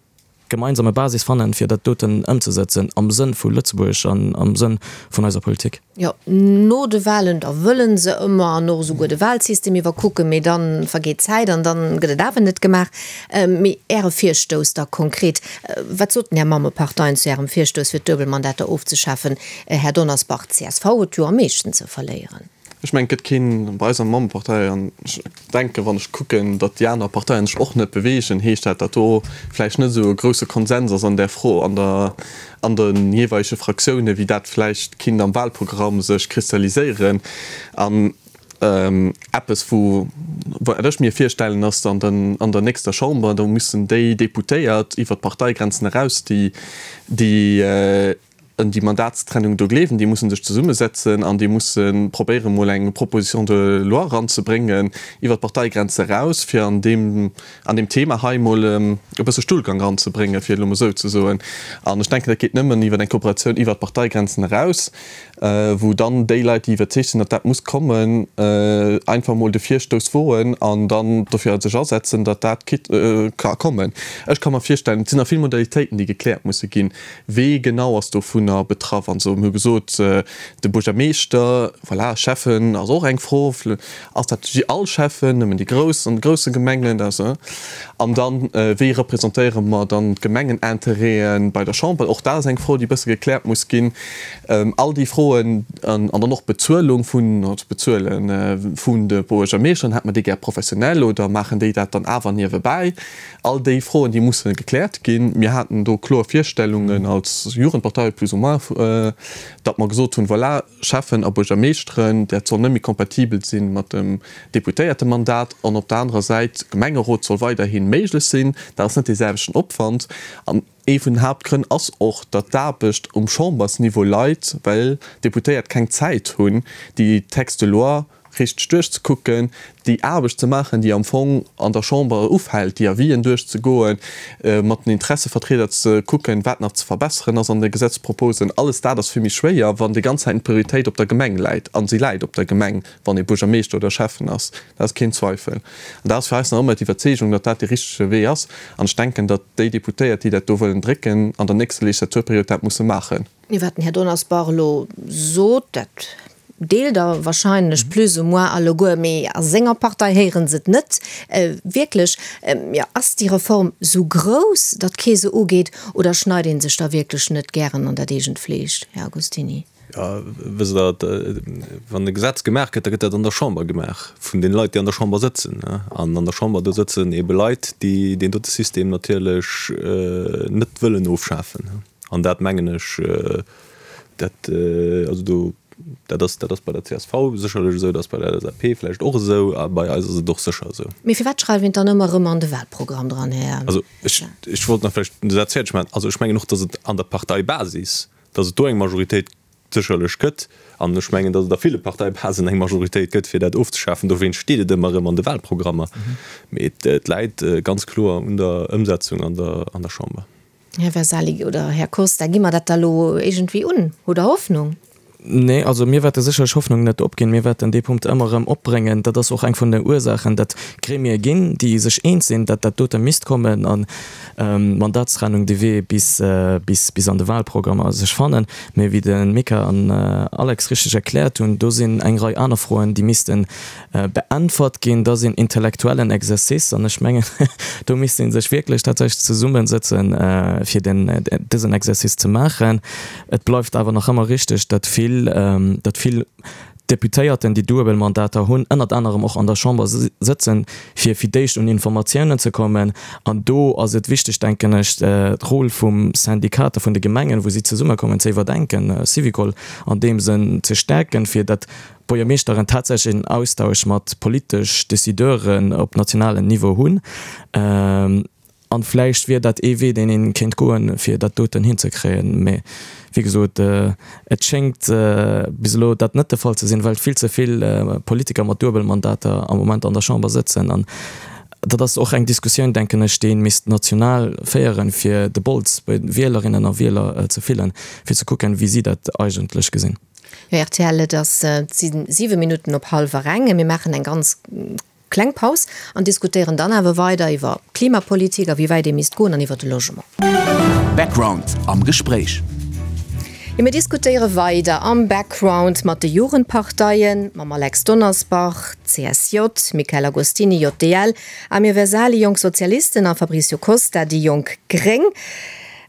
gemeinsame Basis fannen, fir dat doten ëmzesëtzen am Sënn vu Lëtzebuerg an am Sënn vun eiser Politik. Jo, no de Wahlen, da wëlle se ëmmer an och esouguer de Wahlsystem iwwerkucken, mee dann vergeet d'Zäit an dann gëtt et awer net gemaach. Mee Äre Virstouss da konkret, wat soten Är Mammeparteien zu Ärem Virstouss fir d'Duebelmandater ofzeschafen? Här Donnersbach, d'CSV huet jo am meeschten ze verléieren. Ech mengen, et gëtt keen bei eiser Mammepartei, an ech denken, wann ech kucken, datt déi aner Parteien sech och net beweegen, heescht dat, datt do vläicht net esou e grousse Konsens ass an där Fro an der, an de jeeweilege Fraktiounen, wéi dat vläicht kinnt am Wahlprogramm sech kristalliséieren. An Eppes, wou, wat ech mir virstellen, ass an den, an der nächster Chamber, do müssen déi Deputéiert iwwert d'Parteigrenzen eraus, déi, déi. un déi Mandatstrennung do gleewen, déi musse sech zesummesetzen an déi musse probéieren, emol eng Proposition de loi eranzebréngen iwwert d'Parteigrenze eraus, fir an deem, an deem Thema hei emol e bësse Stullgang eranzebréngen, fir et elo emol esou ze soen. An ech denken, dat geet nëmmen iwwer eng Kooperatioun iwwert d'Parteigrenzen eraus. wou dann déi Leit, déi iwwerzeegt sinn, datt dat muss kommen, einfach emol de Virstouss woen an dann dofir sech asetzen, datt dat ka kommen. Ech ka mer virstellen, et sinn nach vill Modalitéiten, déi gekläert musse ginn, wee genau ass dovunner betraff an esou. Mir hu gesot, de Buergermeeschter, voilà, Schäffen ass och eng Fro, ass dat all Schäffen, nëmmen déi grouss an de grousse Gemengen, dat. An dann, wéi representéiere mer dann d'Gemengenintérêten bei der Chamber? Och dat ass eng Fro, déi e bësse gekläert muss ginn. All déi Froen an dann och d'Bezuelung vun, also d'Bezuele vun de Buergermeeschteren, hätt mer déi gär professionell oder maachen déi dat dann awer niewebäi? All déi Froen, déi musse gekläert ginn. Mir haten do kloer Virstellungen als Jugendpartei plus ou moins, datt mer gesot hunn, voilà, Schäffen a Buergermeeschteren, dat soll net méi kompatibel si mat dem Deputéiertemandat an op der anerer Säit, Gemengerot soll weiderhi méiglech sinn. Dat ass net dee selwechten Opwand. An Ee vun den Haaptgrënn ass och, datt d'Aarbecht um Chambersniveau leit, well d'Deputéiert keng Zäit hunn, déi Textes de loi richteg duerchzekucken, déi Aarbecht ze maachen, déi am Fong an der Chamber ufält, déi Avisen duerchzegoen, mat den Interessevertrieder ze kucken, wat nach ze verbesseren ass an de Gesetzproposen. Alles dat ass vill méi schwéier, wann déi ganz Zäit d'Prioritéit op der Gemeng läit. A si läit op der Gemeng, wann ee Buergermeeschter oder Schäffen ass. Dat ass keen Zweifel. An dat ass fir eis nach ëmmer d'Iwwerzeegung, datt dat dee richtege Wee ass. An ech denken, datt déi Deputéiert, déi dat do wëllen drécken, an der nächster Legislaturperiod dat musse maachen. Wat den Här Donnersbach elo sot, dat deelt Der wahrscheinlech plus ou moins alleguer, mee a senger Partei héiere se et net wierklech. Jo, ass déi Reform esou grouss, datt kee se ugeet, oder schneit ee sech da wierklech net gären an dat eegent Fleesch, Här Agostini? Jo, wësst Der, wann e Gesetz gemaach gëtt, da gëtt dat an der Chamber gemaach vun deene Leit, déi an der Chamber sëtzen. An an der Chamber, do sëtzen eebe Leit, déi deen dote System natierlech net wëllen ofschafen. An dat, mengen ech, dat, also do, dat ass, dat ass bei der csv sécherlech esou, dat ass bei der LSAP vläicht och esou a bei eis ass et och sécher esou. Mee firwat schreift een et dann ëmmer erëm an de Wahlprogramm dran, Här? Also ech, ech wollt nach vläicht de Saz fäerdeg maachen. Also ech mengen och, datt et an der Parteibasis Datt et do eng Majoritéit sécherlech gëtt, an ech mengen, datt et a ville Parteibasen eng Majoritéit gëtt, fir dat ofzeschafen, dowéinst steet et ëmmer erëm an de Wahlprogrammer. Mee et läit ganz kloer un der Ëmsetzung an der Chamber. Här Vesali oder Här Costa, gi mer dat da lo iergendwéi un? Hutt Der Hoffnung? Nee, also mir wäerte sécherlech Hoffnung net opginn. Mir wäerten dee Punkt ëmmer erëm opbréngen. Dat ass och eng vun den Ursaachen, datt Gremie ginn, déi sech eens sinn, datt dat dote misst kommen an d'Mandatstrennung de Wee bis bis an de Wahlprogrammer sech fannen. Mee wéi de Mika an Alex richteg erkläert hunn, do sinn eng Rei aner Froen, déi misste beäntwert ginn. Dat ass een intellektuellen Exercice an ech mengen, do misst ee sech wierklech tatsächlech zesummesëtzen, fir den dësen Exercice ze maachen. Et bleift awer nach ëmmer richteg, datt vill, datt vill Deputéierten, déi duebel Mandater hunn, ënnert anerem och an der Chamber sëtzen, fir fir d'éischt un Informatiounen ze kommen. An do ass et wichteg, denken ech, d'Rôle vum Syndicat a vun de Gemengen, wou si zesummekommen, ze iwwerdenken, Syvicol an deem Sënn ze stäerken, fir datt d'Buergermeeschteren tatsächlech en Austausch mat politesch Décideuren op nationalem Niveau hunn. An vläicht wier dat ee Wee, deen ee kéint goen, fir dat doten hinzekréien. Mee wéi gesot, et schéngt bis elo dat net de Fall ze sinn, well vill ze vill Politiker mat Duebelmandater am Moment an der Chamber sëtzen. An dat ass och eng Diskussioun, denken ech, déi ee misst national féieren, fir de Bols bei de Wielerinnen a Wieler ze fillen, fir ze kucken, wéi si dat eigentlech gesinn. Jo, rtl, et ass 7 Minutten op hallwer eng. Mir maachen eng ganz Kleng Paus an diskutéieren dann awer weider iwwer Klimapolitik a wéi wäit ee misst goen an iwwer de Logement. Background am Gespréich. Jo, mir diskutéiere weider am Background mat de Jugendparteien, mam Alex Donnersbach, CSJ, Michel Agostini, JDL, Amir Vesali, Jonk Sozialisten, a Fabricio Costa, déi Jonk Gréng.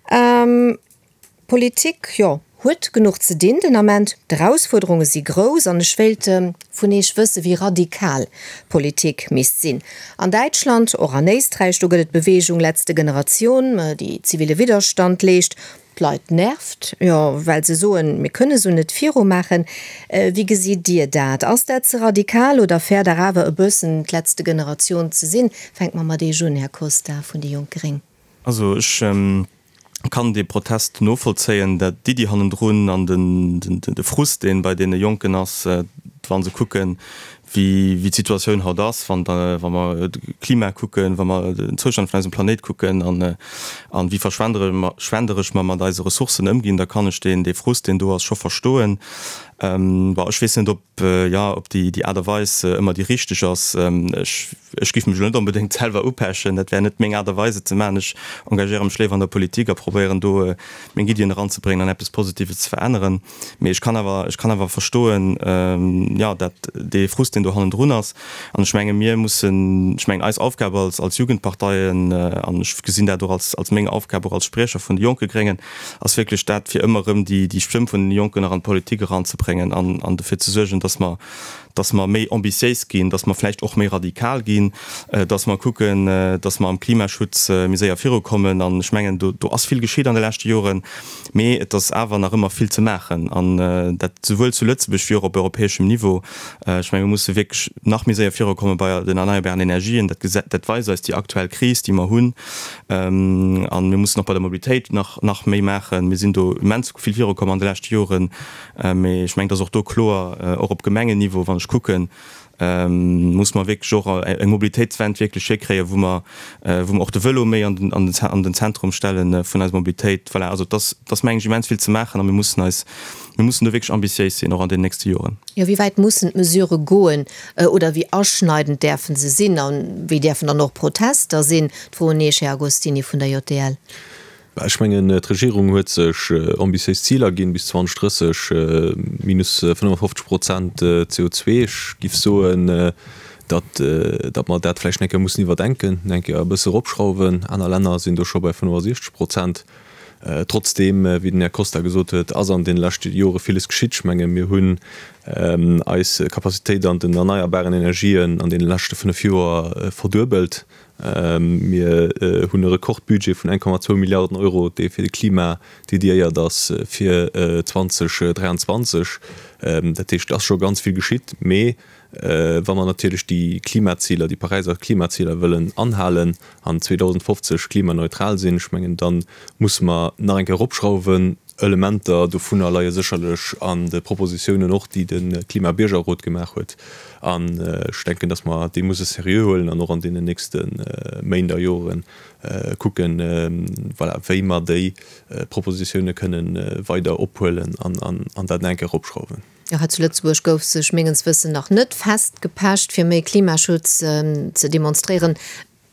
D'Politik, jo, huet genuch ze dinn den Ament. D'Erausfuerderunge si grouss an ech wéilt vun Eech wësse wéi radikal d'Politik misst sinn. An Däitschland, och an Éisträich, do gëtt et d'Beweegung Letzte Generation, déi zivile Widderstand leescht. D'Leit nervt, jo, well se soen, mir kënne sou net virumaachen. Wéi gesitt Dir dat? Ass dat ze radikal oder fäert Der awer e bëssen d'Letzte Generation ze sinn? Fänke mer mat Eech un, Här Costa vun déi jonk gréng. Also ech. Kann dee Protest novollzéien, dat d'Iddi hannendrun an de Frust, dee bei deene Jonken ass, wa se kucken, wéi d'Situatioun haut ass, wa mer d'Klima kucken, wa mer den Zoustand vun eisem Planéit kucken an wéi verschwenderesch mer mat eise Ressourcen ëmginn, da kann ech dee Frust, deen do ass, scho verstoen. Bon, ech weess net, ob, jo, ob déi Aart a Weis ëmmer déi richteg ass. Ech, ech géif mech elo net onbedéngt selwer upechen, dat wär net meng Aart a Weis et ze maachen. Ech engagéiere mech léiwer an der Politik a probéieren do meng Iddien eranzebréngen an eppes Positives ze veränneren. Mee ech kann awer, ech kann awer verstoen, jo, dat dee Frust, deen do hannendrun ass. An ech menge mir mussen, ech mengen eis Aufgab als, als Jugendparteien, an ech gesinn dat och als, als meng Aufgab och als Spriecher vun de jonke Gréngen, ass wierklech dat, fir ëmmer erëm déi, déi Stëmm vun den Jonken nach an d'Politik eranzebréngen an, an dofir ze suergen, dass mer, dass mer méi ambitiéis ginn, dass mer vläicht och méi radikal ginn, dass mer kucken, dass mer am Klimaschutz méi séier virukommen. An ech mengen, do, do ass vill geschitt an de leschte Joren, mee et ass awer nach ëmmer vill ze maachen, an dat souwuel zu Lëtzebuerg wéi och op europäeschem Niveau. Ech menge mir musse wierklech nach méi séier virukomme bei den erneierbaren Energien. Dat dat weist eis déi aktuell Kris, déi mer hunn. A mir mussen och bei der Mobilitéit nach, nach méi maachen. Mir sinn do immens vill virukomm an de leschte Joren. Mee ech mengen, et ass och do kloer, och op Gemengenniveau, wann ech kucken, muss mer wierklech och eng Mobilitéitswend wierklech hikréien, wou mer, wou mer och de Vëlo méi an den, an den, an den Zentrum stelle vun eiser Mobilitéit. Voilà, also et ass, et ass, meng ech, immens vill ze maachen a mir mussen eis, mir mussen do wierklech ambitiéis sinn, och an den nächste Joren. Jo, wéi wäit mussen d'Mesurë goen oder wéi aschneidend däerfe se sinn a wéi däerfen dann och Protester sinn? D'Fro un Iech, Här Agostini vun der JDL. Ech mengen, d'Regierung huet sech ambitiéis Ziler ginn, bis 2030 minus 55 Prozent CO2. Ech giff soen, datt, datt mer dat vläicht eng Kéier mussen iwwerdenken, eng Kéier e bësse eropschrauwen. Aner Länner sinn do scho bei 65 Prozent. Trotzdeem, wéi den Här Costa gesot huet, ass an deene leschte Jore villes geschitt. Ech menge mir hunn eis Capacitéit an den erneierbaren Energien an deene leschte 5 Joer verduebelt. Mir hunn e Rekordbudget vun 1,2 Milliarden Euro, dee fir de Klima dediéiert ass fir 2023. Dat heescht, et ass scho ganz vill geschitt. Mee wa mer natierlech déi Klimaziler, déi Paräiser Klimaziler wëllen anhalen an 2050 klimaneutral sinn, ech mengen, da musse mer nach eng Kéier eropschrauwen. Elementer dovunner leie sécherlech an de Propositiounen och, déi de Klima-Biergerrot gemaach huet. An ech denken, datt mer déi musse seriö huelen an och an deenen nächste Méint a Jore kucken, voilà, wéi mer déi Propositioune kënne weider ophuelen an dat nach eng Kéier eropschrauwen. Jo, hei zu Lëtzebuerg gouf sech mengens Wëssen nach net festgepecht, fir méi Klimaschutz ze demonstréieren.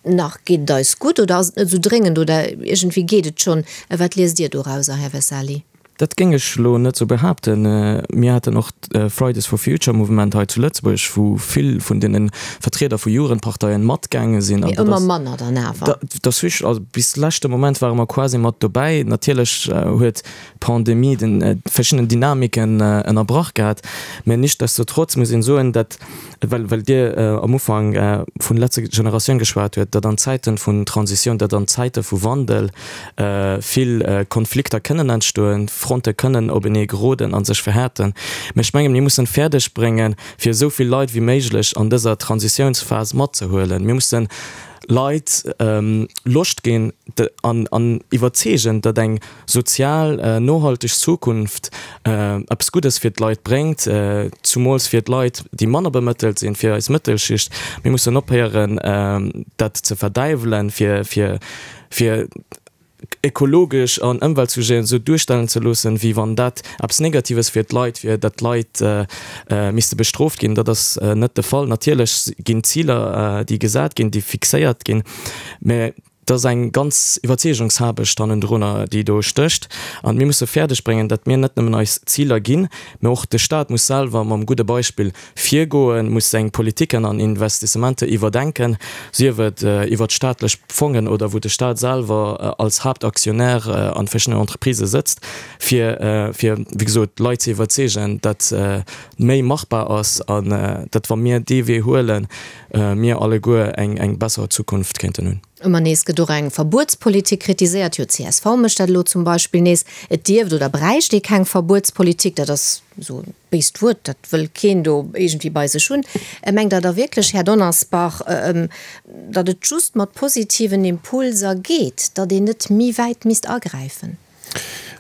Nach geet et eis gutt oder ass et net esou dréngend oder iergendwéi geet et schonn? Wat liest Dir dorauser, Här Vesali? Dat géing ech elo net esou behaapten. Mir haten och d'Fridays for Future Mouvement hei zu Lëtzebuerg, wou vill vun deene Vertrieder vu Jugendparteien matgaange sinn. Mee ëmmer manner dann awer. Dat ass richtig. Also bis leschte Moment ware mer quasi mat dobäi. Natierlech huet d'Pandemie de verschiddenen Dynamiken ënnerbrach gehat. Mä nichtsdestotrotz muss een soen, dat well well Dir am Ufank vun letzte Generatioun geschwat huet, datt an Zäiten vun Transitioun, datt an Zäite vu Wandel vill Konflikter kënnen entstoen, Fronte kënnen openee geroden a sech verhäerten. Mä ech mengen, mir mussen fäerdeg bréngen, fir esou vill Leit wéi méiglech an dëser Transitiounsphas matzehuelen. Mir mussen Leit Loscht ginn an an iwwerzeegen, datt eng sozial nohalteg Zukunft eppes Guddes fir d'Leit bréngt, zumools fir d'Leit, déi manner bemëttelt sinn, fir eis Mëttelschicht. Mir mussen ophéieren, dat ze verdäiwelen, fir fir fir ekologesch an Ëmweltsujeten esou duerstellen ze loossen, wéi wann dat eppes Negatives fir d'Leit wier, datt d'Leit misste bestrooft ginn. Dat ass net de Fall. Natierlech ginn Ziler, déi gesat ginn, déi fixéiert ginn, mä et ass eng ganz Iwwerzeegungshaarbecht hannendrunner, déi do stécht. An mir musse fäerdeg bréngen, datt mir net nëmmen eis Ziler ginn, mä och de Staat muss selwer mam gudde Beispill virgoen, muss seng Politiken an Investissementer iwwerdenken, sief et iwwert staatlech Fongen oder wou de Staat selwer als Haaptaktionär an verschiddenen Entreprisë sëtzt, fir, fir wéi gesot, d'Leit ze iwwerzeegen, datt méi machbar ass an datt, wa mir dee Wee huelen, mir alleguer eng, eng besser Zukunft kéinten hunn. Ëmmer nees gëtt och eng Verbuetspolitik kritiséiert. Jo, csv mécht dat elo zum Beispill nees. Et dierft oder bräicht ee keng Verbuetspolitik. Dat ass esou e béist Wuert, dat wëll keen do iergendwéi bei sech hunn. Mengt Der da wierklech, Här Donnersbach, datt et just mat positiven Impulser geet, datt een net méi wäit misst agräifen?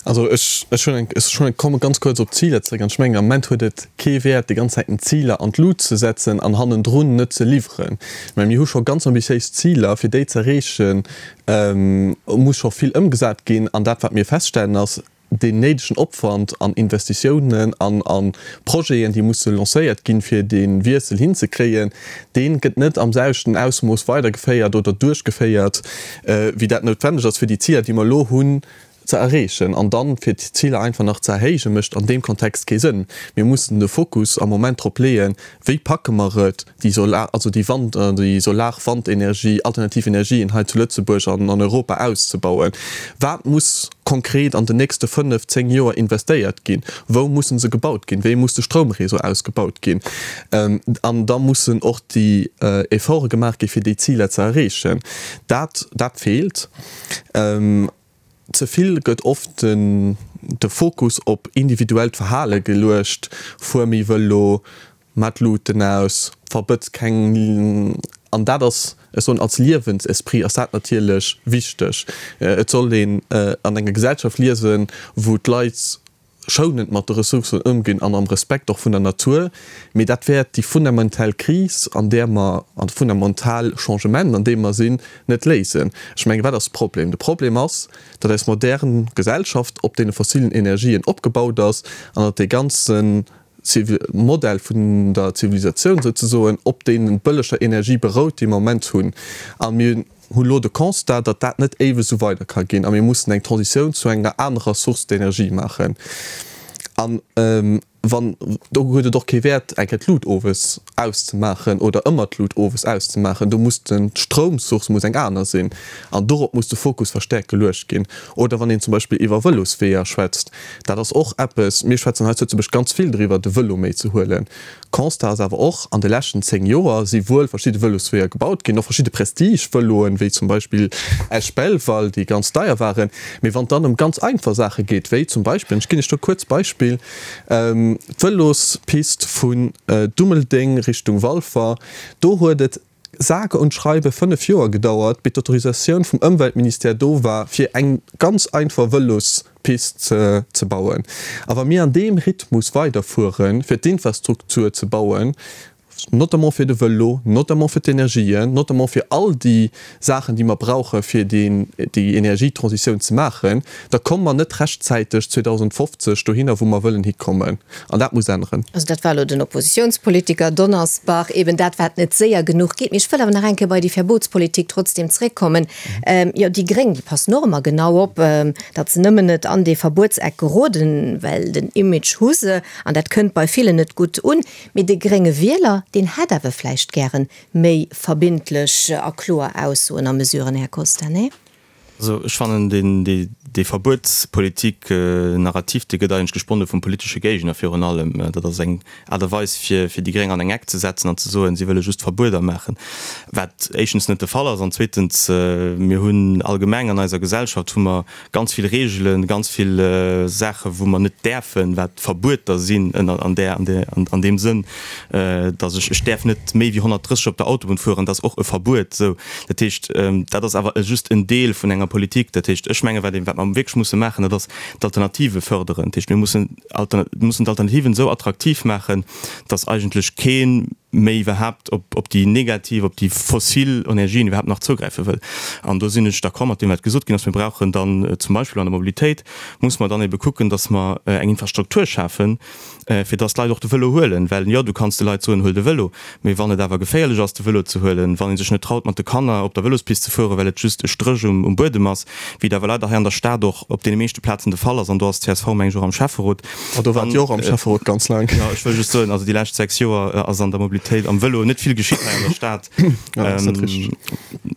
Also ech, ech hunn eng, ech hunn eng, komme ganz kuerz op d'Ziler zréck an ech mengen am Moment huet et kee Wäert déi ganz Zäiten Ziler an d'Lut ze setzen an hannendrun net ze liwweren. Mä mir hu scho ganz ambitiéis Ziler, fir déi ze erreechen, muss scho vill ëmgesat ginn an dat wat mir feststellen ass, deen néidegen Opwand an Investitiounen an a Projeten, déi musse lancéiert ginn, fir dee Wiessel hinzekréien, dee gëtt net am selwechten Ausmooss weidergeféiert oder duerchgeféiert, wéi dat noutwenneg ass, fir déi Ziler, déi mer elo hunn, ze erreechen. An dann, fir d'Ziler einfach nach ze erhéijen, mécht an deem Kontext kee Sënn. Mir mussen de Fokus am Moment drop leeën, Wéi packe mer et, déi Solar, also déi Wand, déi Solar-Wandenergie, alternativ Energien hei zu Lëtzebuerg an an Europa auszebauen? Wat muss konkret an den nächste fënnef, zéng Joer investéiert ginn? Wou musse se gebaut ginn? Wéi muss de Stroumréseau ausgebaut ginn? An da mussen och déi Efforte gemaach gi fir déi Ziler ze erreechen. Dat, dat feelt. Ze vill gëtt oft de Fokus op individuellt Verhale geluecht, fuer méi Vëlo, maa d'Luuten aus, verbëtz keng. An dat ass, ech soen, als Liewensesprit ass dat natierlech wichteg. Et soll een an enger Gesellschaft liesen, wou d'Leit schounend mat de Ressourcen ëmginn an am Respekt och vun der Natur, mee dat wäert déi fundamental Kris, an där mer, an de fundamental Changement, an deem mer sinn, net léisen. Ech mengen, wat ass de Problem? De Problem ass, datt eis modern Gesellschaft op deene fossilen Energien opgebaut ass an datt dee ganze Modell vun der Zivilisatioun souzesoen op deene bëlleger Energie berout, déi mer am Moment hunn. A mir hunn elo de Constat, datt dat net éiweg esou weider ka ginn a mir mussen eng Transitioun zu enger anerer Source d'énergie maachen. An wann, do huet et och kee Wäert, eng Kéier d'Lut owes auszemaachen oder ëmmer d'Lut owes auszemaachen. Do muss den, d'Stroumsource muss eng aner sinn an dorop muss de Fokus verstäerkt geluecht ginn. Oder wann een zum Beispill iwwer Vëlosweeër schwätzt, dat ass och eppes, mir schwätzen hei zu Lëtzebuerg ganz vill driwwer, de Vëlo méi ze huelen. Constat ass awer och, an de leschten 10 Joer si wuel verschidde Vëlosweeër gebaut ginn, och verschidde Prestige-Vëloen, wéi zum Beispill Esch-Belval, déi ganz deier waren. Mee wann et dann ëm ganz einfach Saache geet, wéi zum Beispill, an ech ginn Iech do e kuerzt Beispill, d'Vëlospist vun Dummeldeng Richtung Walfer, do huet et sage und schreibe 5 Joer gedauert, bis d'Autorisatioun vum Ëmweltministère do war, fir eng ganz einfach Vëlospist ze bauen. A wa mir an deem Rhythmus weiderfueren, fir d'Infrastruktur ze bauen, notamment fir de Vëlo, notamment fir d'Energien, notamment fir all déi Saachen, déi mer brauche fir déi Energietransitioun ze maachen, da komme mer net rechtzäiteg 2050 dohinner, wou mer wëllen hikommen. An dat muss änneren. Also dat war elo den Oppositionspolitiker Donnersbach, eben dat wat net séier genuch geet. Mee ech wëll awer nach eng Kéier bei déi Verbotspolitik trotzdem zréckkommen. Jo, déi Gréng, déi passen och ëmmer genau op, datt se nëmmen net an dee Verbuetseck geroden, well den Image hu se an dat kënnt bei villen net gutt un. Mee de grénge Wieler, deen hätt awer vläicht gären méi verbindlech a kloer Aussoen a Mesuren, Här Costa, nee? Also ech fannen deen, dee Verbuetspolitik-Narrativ, dee gëtt eigentlech gesponne vum politesche Géigner virun allem. Dat ass eng Aart a Weis fir, fir déi Gréng an eng Eck ze setzen an ze soen, si wëlle just Verbueder maachen, wat éischtens net de Fall ass an zweetens, mir hunn allgemeng an eiser Gesellschaft hu mer ganz vill Reegelen, ganz vill Saache wou mer net däerfen, wat Verbueter sinn ënner an där, an där, an deem Sënn, datt ech, ech däerf net méi wéi 130 op der Autobunn fueren, dat ass och e Verbuet. Esou, dat heescht, dat ass awer just en Deel vun enger Politik. Dat heescht, ech menge wat ee, wat mer wierklech musse maachen, dat ass d'Alternative fërderen. Dat heescht, mir mussen mussen d'Alternativen esou attraktiv maachen, datt eigentlech kee méi iwwerhaapt op, op déi negativ, op déi fossil Energien iwwerhaapt nach zougräife wëll. An do sinn ech d'accord mat deem, wat gesot ginn ass. Mir brauchen dann zum Beispill an der Mobilitéit, muss mer dann ebe kucken, datt mer eng Infrastruktur schafen, fir dass d'Leit och de Vëlo huelen, well jo, du kanns de Leit soen, huel de Vëlo, mee wann et awer geféierlech ass de Vëlo ze huelen, wann ee sech net traut mat de Kanner op der Vëlospist ze fueren, well et just e Stréch um Buedem ass, wéi et awer leider hei an der Stad och op deene meeschte Plazen de Fall ass, an do ass csv meng ech och am Schäfferot. A do waart Dir och am Schäfferot ganz laang. Jo, ech wëll just soen, also déi lescht 6 Joer ass an der Mobilitéit am Vëlo net vill geschitt hei an der Stad. Jo, dat ass net richteg.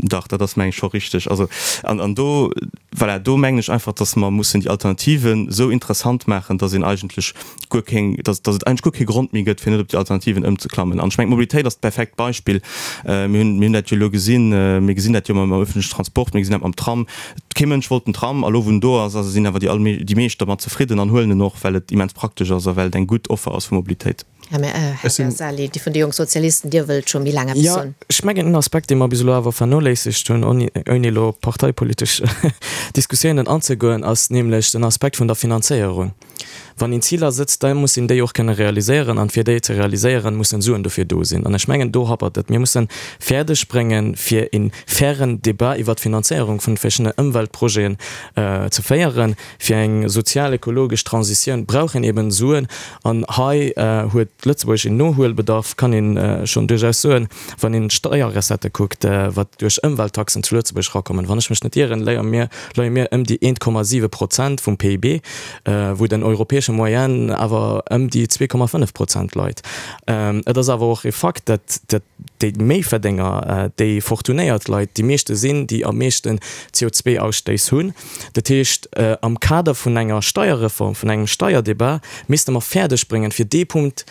Dach, dat ass meng ech scho richteg. Also, an do. Voilà, do mengen ech einfach, dass mer mussen déi Alternativen esou interessant maachen, dass een eigentlech guer keng, dass, dass et eigentlech guer kee Grond méi gëtt, fir net op déi Alternativen ëmzeklammen. An ech mengen, d'Mobilitéit ass d'perfekt Beispill. Mir hunn, mir hunn dat jo elo gesinn, mir gesinn dat jo mam öffentlichen Transport, mir gesinn dat mam Tram. Kee Mënsch wollt den Tram, a lo wou en do ass, ass, sinn awer déi allmee, déi meescht dermat zefridden an huelen en och, well et immens praktesch ass a well et eng gutt Offer ass vu Mobilitéit. Här Ghersali, Dir vun de Jonk Sozialisten, Dir wëllt scho méi laang eppes soen. Jo, ech mengen, en Aspekt, dee mer bis elo awer vernoléissegt hunn, ouni elo op parteipolitesch Diskussiounen anzegoen, ass nämlech den Aspekt vun der Finanzéierung. Wann een Ziler sëtzt, da muss een déi och kënne realiséieren, an fir déi ze realiséieren, mussen Suen dofir do sinn. An ech mengen, do happert et. Mir mussen fäerdeg bréngen, fir e fairen Débat iwwert d'Finanzéierung vun verschiddenen Ëmweltprojeten ze féieren. Fir eng sozial-ökologesch Transitioun brauch een eben Suen. An hei huet Lëtzebuerg een Nohuelbedarf, kann ee schonn duerchaus soen, wann een d'Steierrecettë kuckt, wat duerch Ëmwelttaxen zu Lëtzebuerg erakommen. Wann ech mech net ieren, leie mir, leie mir ëm déi 1,7 Prozent vum PIB, wou den europäesche Moyenne awer ëm déi 2,5 Prozent leit. Et ass awer och e Fakt, datt déi Méiverdénger, déi fortunéiert Leit déi meeschte sinn, déi am meeschten CO2-Ausstéiss hunn. Dat heescht, am Kader vun enger Steierreform, vun engem Steierdebat, misste mer fäerdeg bréngen, fir dee Punkt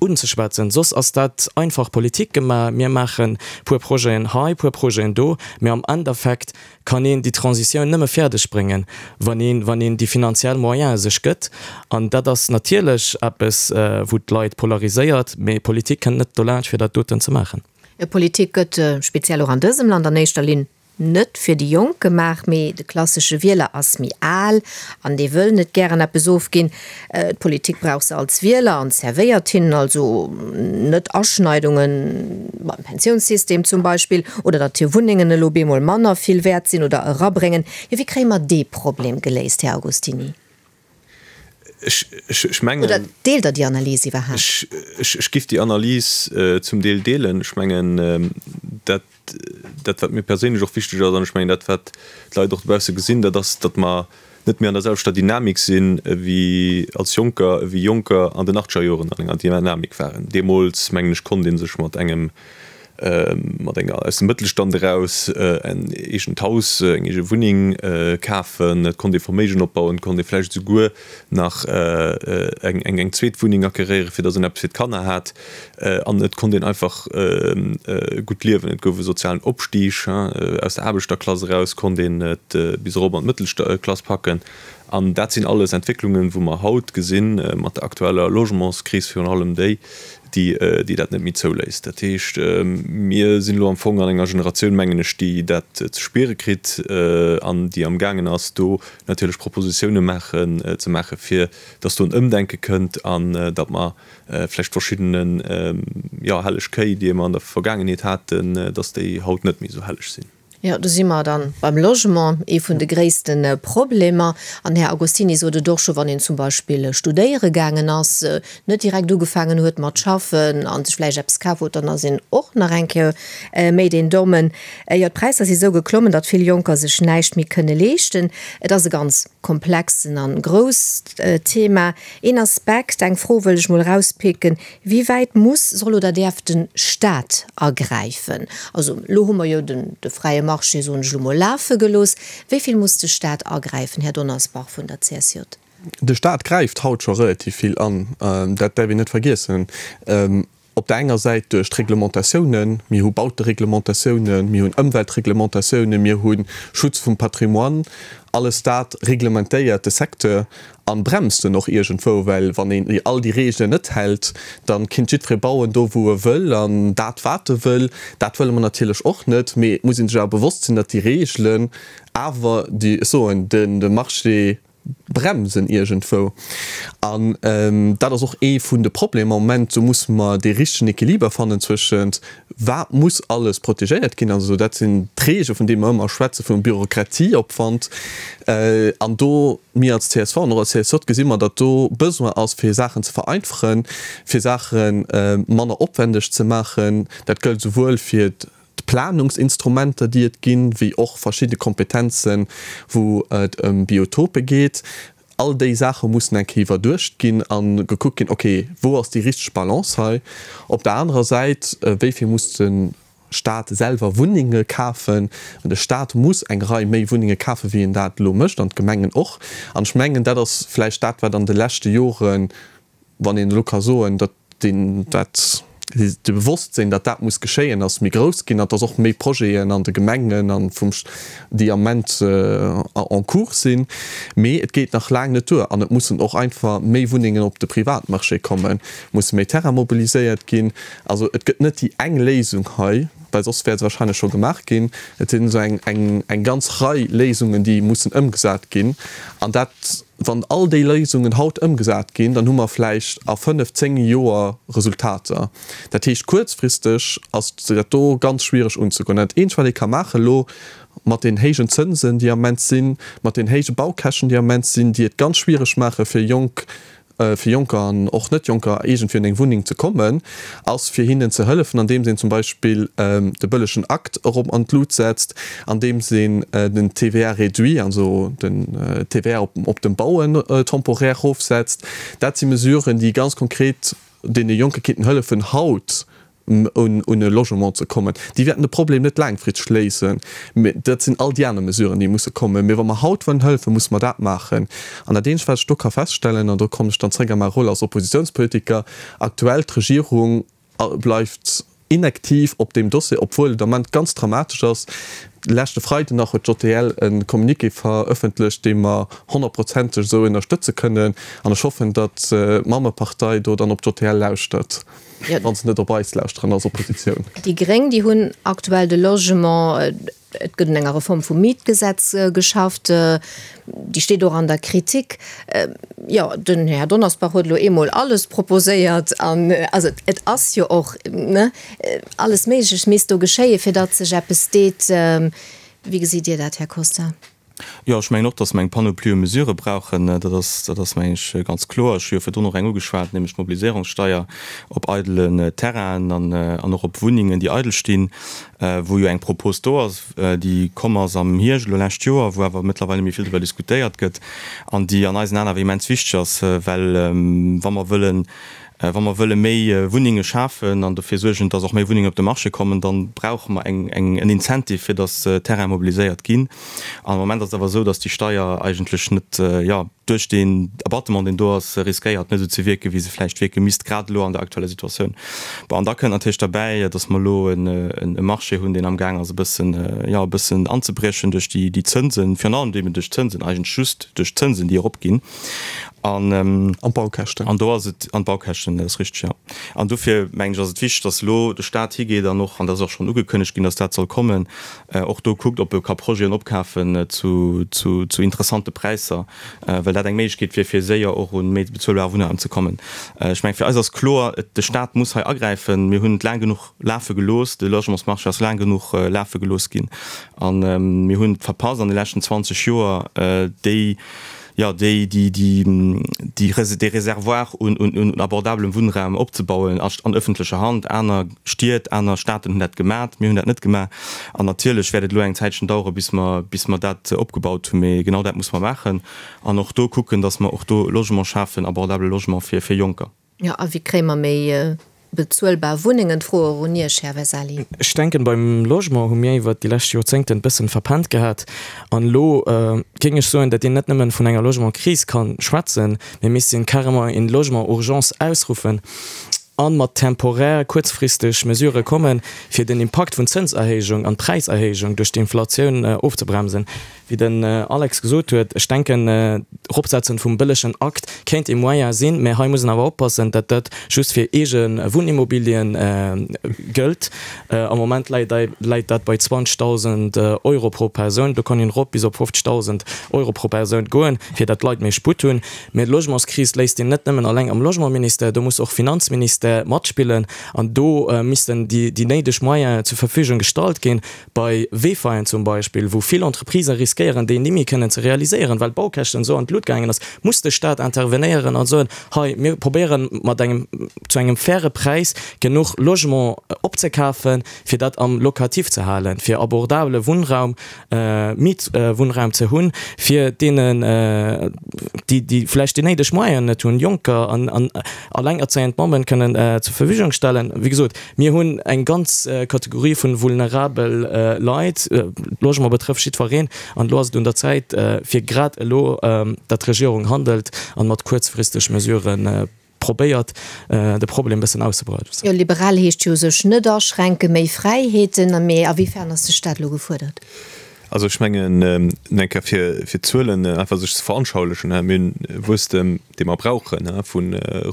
unzeschwätzen. Soss ass dat einfach Politik gemaach, mir maache puer Projeten hei, puer Projeten do, mä am Endeffekt kann een déi Transitioun nëmme fäerdeg bréngen, wann een, wann een déi finanziell Moyene sech gëtt. An dat ass natierlech eppes, wou d'Leit polariséiert, mä Politik kënnt net dolaanscht, fir dat doten ze maachen. Politik gëtt, speziell och an dësem Land, an éischter Linn Net fir déi Jonk gemaach, mee de klassesche Wieler ass méi al an dee wëll net gären eppes ofginn. D'Politik brauch se als Wieler an zerwéiert hinnen also net Aschneidunge beim Pensiounssystem zum Beispill oder datt hir Wunnengen elo bemol manner vill wäert sinn oder erabréngen. Jo, wéi kréie mer dee Problem geléist, Här Agostini? Ech mengen. Oder deelt Der déi Analys iwwerhaapt? Ech giff déi Analys zum Deel deelen. Ech mengen, dat, dat wat mir perséinlech och wichteg ass, an ech mengen dat wat d'Leit och dobausse gesinn, dat ass, datt mer net méi an der selwechter Dynamik sinn ewéi als Jonker, ewéi Jonker an den achtzeger Joren an enger Dynamik waren. Deemools, mengen ech, konnt ee sech mat engem mat enger aus dem Mëttelstand eraus en eegent Haus, eng eege Wunneng kafen, et konnt ee Verméigen opbauen, et konnt ee vläicht esouguer nach eng eng zweet Wunneng acqueréieren, fir datt een eppes fir d'Kanner hat an et konnt een einfach gutt liewen. Et gouf e sozialen Opstig, aus der Aarbechterklass eraus konnt een et bis erop an d'Mëttelklass packen an dat sinn alles Entwécklungen, wou mer haut gesinn, mat der aktueller Logementskris virun allem déi, déi dat net méi zouléisst. Dat heescht, mir sinn elo am Fong an enger Generatioun, mengen ech, déi dat ze spiere kritt an déi amgaangen ass, do natierlech Propositioune maachen, ze maachen, fir datt do en Ëmdenke kënnt an datt mer vläicht verschiddene, jo, helleg Kéi, déi mer an der Vergaangenheet haten, datt déi haut net méi esou helleg sinn. Jo, do si mer dann beim Logement, ee vun de gréisste Problemer. An Här Agostini sot et och scho, wann een zum Beispill studéiere gaangen ass, net direkt ugefaangen huet mat schaffen a sech vläicht eppes kaf huet, dann ass een och nach eng Kéier méi deen Dommen. Jo, d'Präisser si sou geklommen, datt vill Jonker sech näischt méi kënne leeschten. Et ass e ganz komplexen an grousst Thema. Een Aspekt, eng Fro wëll ech mol erauspicken, Wéi wäit muss, soll oder däerf de Staat agräifen? Also elo hu mer jo den de fräie Marché, soen ech elo mol, lafe gelooss. Wéi vill muss de Staat agräifen, Här Donnersbach vun der CSJ? De Staat gräift haut scho relativ vill an, dat däerf een net vergiessen. Op der enger Säit duerch d'Reglementatiounen, mir hu Bautereglementatiounen, mir hunn Ëmweltreglementatiounen, mir hu Schutz vum Patrimoine, alles dat reglementéiert de Secteur An bremst en och iergendwou, well wann een all déi Reegelen net hält, da kinnt jiddweree bauen do wou e wëll an dat wat e wëll. Dat wëlle mer natierlech och net, mee et muss ee sech awer bewosst sinn, datt déi Reegelen awer déi, ech soen, de Marché bremsen iergendwou. An dat ass och ee vun de Problemer am Moment. Do musse mer dee richtegen Equiliber fannen zwëschent Wat muss alles protegéiert ginn? Also dat sinn d'Reegele vun deene mer ëmmer schwätzen, vum Bürokratieopwand. An do, mir als csv an och als CSJ gesi mer, datt do Besoin ass fir Saachen ze vereinfachen, fir Saache manner opwändeg ze maachen. Dat gëllt esouwuel fir d'Planungsinstrumenter, déi et ginn, wéi och verschidde Kompetenzen, wou et ëm Biotope geet. All déi Saache mussen eng Kéier iwwerduecht ginn a gekuckt ginn, okay, wou ass déi richteg Balance hei? Op der anerer Säit, wéi vill muss de. Staat selwer Wunnenge kafen. De Staat muss eng Rei méi Wunnenge kafen, wéi en dat elo mécht, an d'Gemengen och. An ech mengen, dat ass vläicht dat, wat an de leschte Joren, wann een elo ka soen, datt deen, dat de Bewosstsinn, datt dat muss geschéien, ass méi grouss ginn an datt och méi Projeten an de Gemengen an vum, déi am Ament en cours sinn. Mee et geet nach laang net duer an et mussen och einfach méi Wunnengen op de Privatmarché kommen, musse méi Terrain mobiliséiert ginn. Also et gëtt net déi eng Léisung hei, well soss wär se wahrscheinlech scho gemaach ginn. Et sinn esou eng, eng, eng ganz Rei Léisungen, déi mussen ëmgesat ginn an dat, Wann all déi Léisungen haut ëmgesat ginn, dann hu mer vläicht a fënnef, zéng Joer Resultater. Dat heescht, kuerzfristeg ass dat do ganz schwiereg unzegoen. Dat eenzegt, wat ee ka maachen elo mat den héijen Zënsen, déi am Ament sinn, mat den héije Baukäschten, déi am Ament sinn, déi et ganz schwiereg maache fir jonk fir Jonker an och Net-Jonker iergendwéi un eng Wunneng ze kommen, ass fir hinnen ze hëllefen, andeems een zum Beispill de bëllegen Akt erop an d'Lut setzt, andeems een den TVA réduit, also den TVA op dem Bauen temporaire erofsetzt. Dat si Mesuren, déi ganz konkret deene Jonke kéinten hëllefen, haut un e Logement ze kommen. Déi wäerten de Problem net laangfristeg léisen, mä dat sinn all déi aner Mesuren, déi musse kommen. Mee wa mer haut wëllen hëllefen, musse mer dat maachen. An dat eenzegt, wat ech do ka feststellen, an do kommen ech dann zréck a mäi Rôle als Oppositionspolitiker, aktuell, d'Regierung bleift inaktiv op deem Dossier, obwuel et am Ament ganz dramatesch ass. Leschte Freiden nach huet d'JTL e Communiqué verëffentlecht, dee mer honnertprozenteg esou ënnerstëtze kënnen. An ech hoffen, datt d'Mammepartei do dann op d'JTL lauschtert. Wann se net op eis lauschteren als Oppositioun. Déi Gréng, déi hunn aktuell de Logement, et gëtt un enger Reform vum Mietgesetz geschafft, déi steet och an der Kritik. Jo, den Här Donnersbach huet elo eemol alles proposéiert an also et ass jo och, ne, alles Méiglecht misst do geschéien, fir datt sech eppes deet. Wéi gesitt Dir dat, Här Costa? Jo, ech mengen och, dass mer eng Panoplie u Mesurë brauchen. Dat ass, dat ass, mengen ech, ganz kloer. Ech hu jo virdrun och eng ugeschwat, nämlech d'Mobiliséierungssteier op eidelen Terrainen an, an och op Wunnengen, déi eidel stinn, wou jo eng Propos do ass, déi komm ass am Hierscht elo lescht Joer, wou awer mëttlerweil net méi vill driwwer diskutéiert gëtt an déi an eisen Aen awer immens wichteg ass, well wa mer wëllen Wa mer wëlle méi Wunnenge schafen an dofir suergen, dass och méi Wunnengen op de Marché kommen, da brauche mer eng, eng, en Incentive, fir dass Terraine mobiliséiert ginn. An am Moment ass et awer esou, dass déi Steier eigentlech net, jo, duerch deen Abattement, deen do ass, riskéiert, net esou ze wierken, wéi se vläicht wierke misst, grad elo an der aktueller Situatioun. Bon, an da kënnt natierlech derbäi, dass mer elo en, e Marché hunn, deen amgaang ass, e bëssen, jo, e bëssen anzebriechen duerch déi, déi Zënsen, virun allem eben duerch d'Zënsen, eigentlech just duerch d'Zënsen, déi eropginn. An, An d'Baukäschten. An do ass et, an d'Baukäschten, dat ass richteg, jo. An dofir, mengen ech, ass et wichteg, dass elo de Stat higeet an och, an dat ass och schonn ugekënnegt ginn, dass dat soll kommen, och do kuckt, ob e ka Projeten opkafen zu, zu, zu interessante Präisser, well dat eng Méiglechkeet wier, fir séier och un méi bezuelbare Wunnraum ze kommen. Ech mengen, fir eis ass kloer, et, de Stat muss hei agräifen. Mir hunn et laang genuch lafe gelooss, de Logementsmarché ass laang genuch lafe gelooss ginn a mir hunn et verpasst an de leschten 20 Joer, déi, jo, déi, déi, déi, déi, dee Réservoir un, un, un abordabelem Wunnraum opzebauen a an öffentlecher Hand. Aner Stied, aner Staaten hunn dat gemat, mir hunn dat net gemaach. An natierlech wäert et elo eng Zäitchen dauere bis mer, bis mer dat opgebaut hunn, mee genau dat muss mer maachen an och do kucken, dass mer och do Logement schafen, abordabele Logement fir, fir Jonker. Jo, a wéi kréie mer méi bezuelbar Wunnengen? D'Fro och un Iech, Här Vesali. Ech denken, beim Logement hu mir iwwert déi lescht Joerzéngten bëssen verpennt gehat. An elo géing ech soen, datt een net nëmmen vun enger Logementkris kann schwätzen, mee misst een carrément een Logement urgence ausruffen an mat temporär, kuerzfristeg Mesurë kommen, fir den Impakt vun Zënserhéijung an Präiserhéijung duerch d'Inflatioun ofzebremsen. Wéi den Alex gesot huet, ech denken, d'Eropsetzen vum bëllegen Akt kéint ee Moyen sinn, mä hei muss een awer oppassen, datt dat just fir eege Wunnimmobilien gëllt. Am Moment läit dat bei 20.000 Euro pro Persoun. Do kann een erop bis op 50.000 Euro pro Persoun goen, fir datt d'Leit méi Sputt hunn. Mä d'Logementskris léisst een net nëmmen alleng am Logementministère, do muss och Finanzministère matspillen an do missten déi néideg Moyenen zur Verfügung gestallt ginn. Bei Wefaien zum Beispill, wou vill Entreprisë riskéieren. riskéieren déi nimmi kënnen ze realiséieren, well d'Baukäschten esou an d'Lut gaangen ass, muss de Staat intervenéieren an soen, hei mir probéieren mat engem zu engem faire Präis genuch Logement opzekafen, fir dat am Locatif ze halen, fir abordabele Wunnraum, Mietwunnraum ze hunn, fir deenen, déi déi vläicht déi néideg Moyenen net hunn, Jonker an an allengerzéiend Mammen kënnen zur Verfügung stellen. Wéi gesot, mir hunn eng ganz Kategorie vu vulnerabel Leit. Logement betrëfft jiddwereen an elo ass et un der Zäit, fir grad elo, datt d'Regierung handelt an mat kuerzfristeg Mesuren probéiert de Problem bëssen auszebreiten. Jo, liberal heescht jo sech net aschränken, méi Fräiheeten, mee a wéi fern ass de Staat elo gefuerdert? Also ech mengen, eng Kéier fir fir d'Zuelen einfach sech ze veranschaulichen, mir hunn e Wuesstem, dee mer brauchen, vu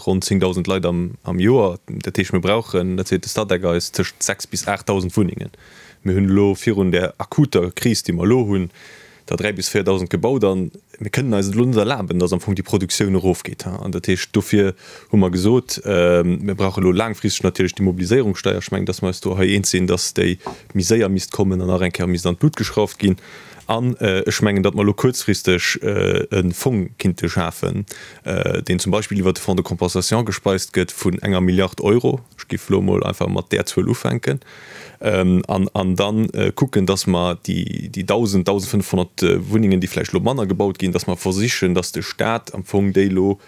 ronn 10.000 Leit am am Joer. Dat heescht, mir brauchen, dat seet de Statec eis, tëscht 6 bis 8.000 Wunnengen. Mir hunn elo virun där akuter Kris, déi mer elo hunn, der 3 bis 4.000 gebaut an mir kënnen eis et elo net erlaben, dass am Fong déi Produktioun erofgeet. An dat heescht, dofir hu mer gesot, mir brauche elo laangfristeg natierlech déi Mobiliséierungssteier. Ech mengen, dass mer eis do hei eens sinn, dass déi méi séier misst kommen an nach eng Kéier misst an d'Lut geschrauft ginn. An ech mengen, datt mer elo kuerzfristeg e Fong kinnte schafen, deen zum Beispill iwwert de Fonds de compensation gespeist gëtt vun enger Milliard Euro. Ech géif elo emol einfach mat där Zuel ufänken. An da kucken, dass mer déi 1.000, 1.500 Wunnengen, déi vläicht elo manner gebaut ginn, dass mer versichen, dass de Stat am Fong déi elo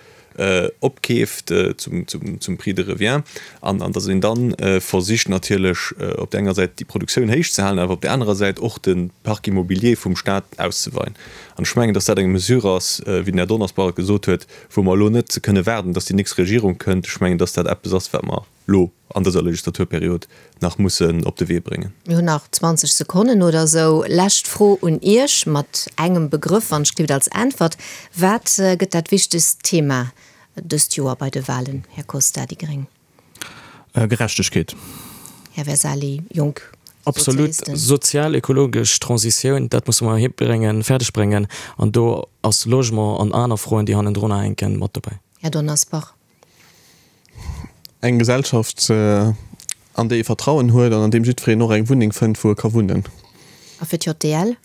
opkeeft zum Prix de revient an dass een da versicht natierlech op där enger Säit déi Produktioun héich ze halen, awer op där anerer Säit och de Parc immobilier vum Stat auszeweien. An ech mengen, dass dat eng Mesure ass, wéi den Här Donnersbach et gesot huet, wou mer elo net kënne waarden, dass déi nächst Regierung kënnt. Ech mengen, dass dat eppes ass, wat mer lo an dëser Legislaturperiod nach mussen op de Wee bréngen. Mir hunn nach 20 Sekonnen oder esou. Lescht Fro un Iech mat engem Begrëff, wann ech gleeft, als Äntwert. Wat gëtt dat wichtegst Thema dëst Joer bei de Wahlen, Här Costa, déi gréng? Gerechtegkeet. Här Versali, Jonk Absolut. Sozialisten. Sozial-ökologesch Transitioun, dat musse mer hibréngen, fäerdeg bréngen. An do ass Logement an aner Froen, déi hannendrunner hänken, mat dobäi. Här Donnersbach. Eng Gesellschaft, an déi ee Vertrauen huet an an deem jiddwereen och eng Wunneng fënnt, wou e ka wunnen. A fir d'JDL?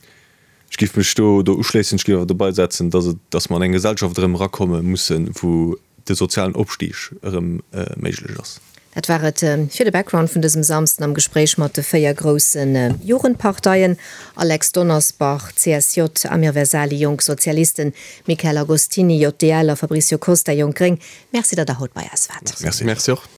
Ech géif mech do do uschléissen. Ech géif awer dobei setzen, dass et, dass mer an eng Gesellschaft erëm erakomme mussen, wou de sozialen Opstig erëm méiglech ass. Dat war et fir de Background vun dësem Samsden am Gespréich mat de 4 grousse Jugendparteien, Alex Donnersbach, CSJ, Amir Vesali, Jonk Sozialisten, Michael Agostini, JDL, a Fabricio Costa, Jonk Gréng. Merci, datt der haut bei eis waart. Merci. Merci och.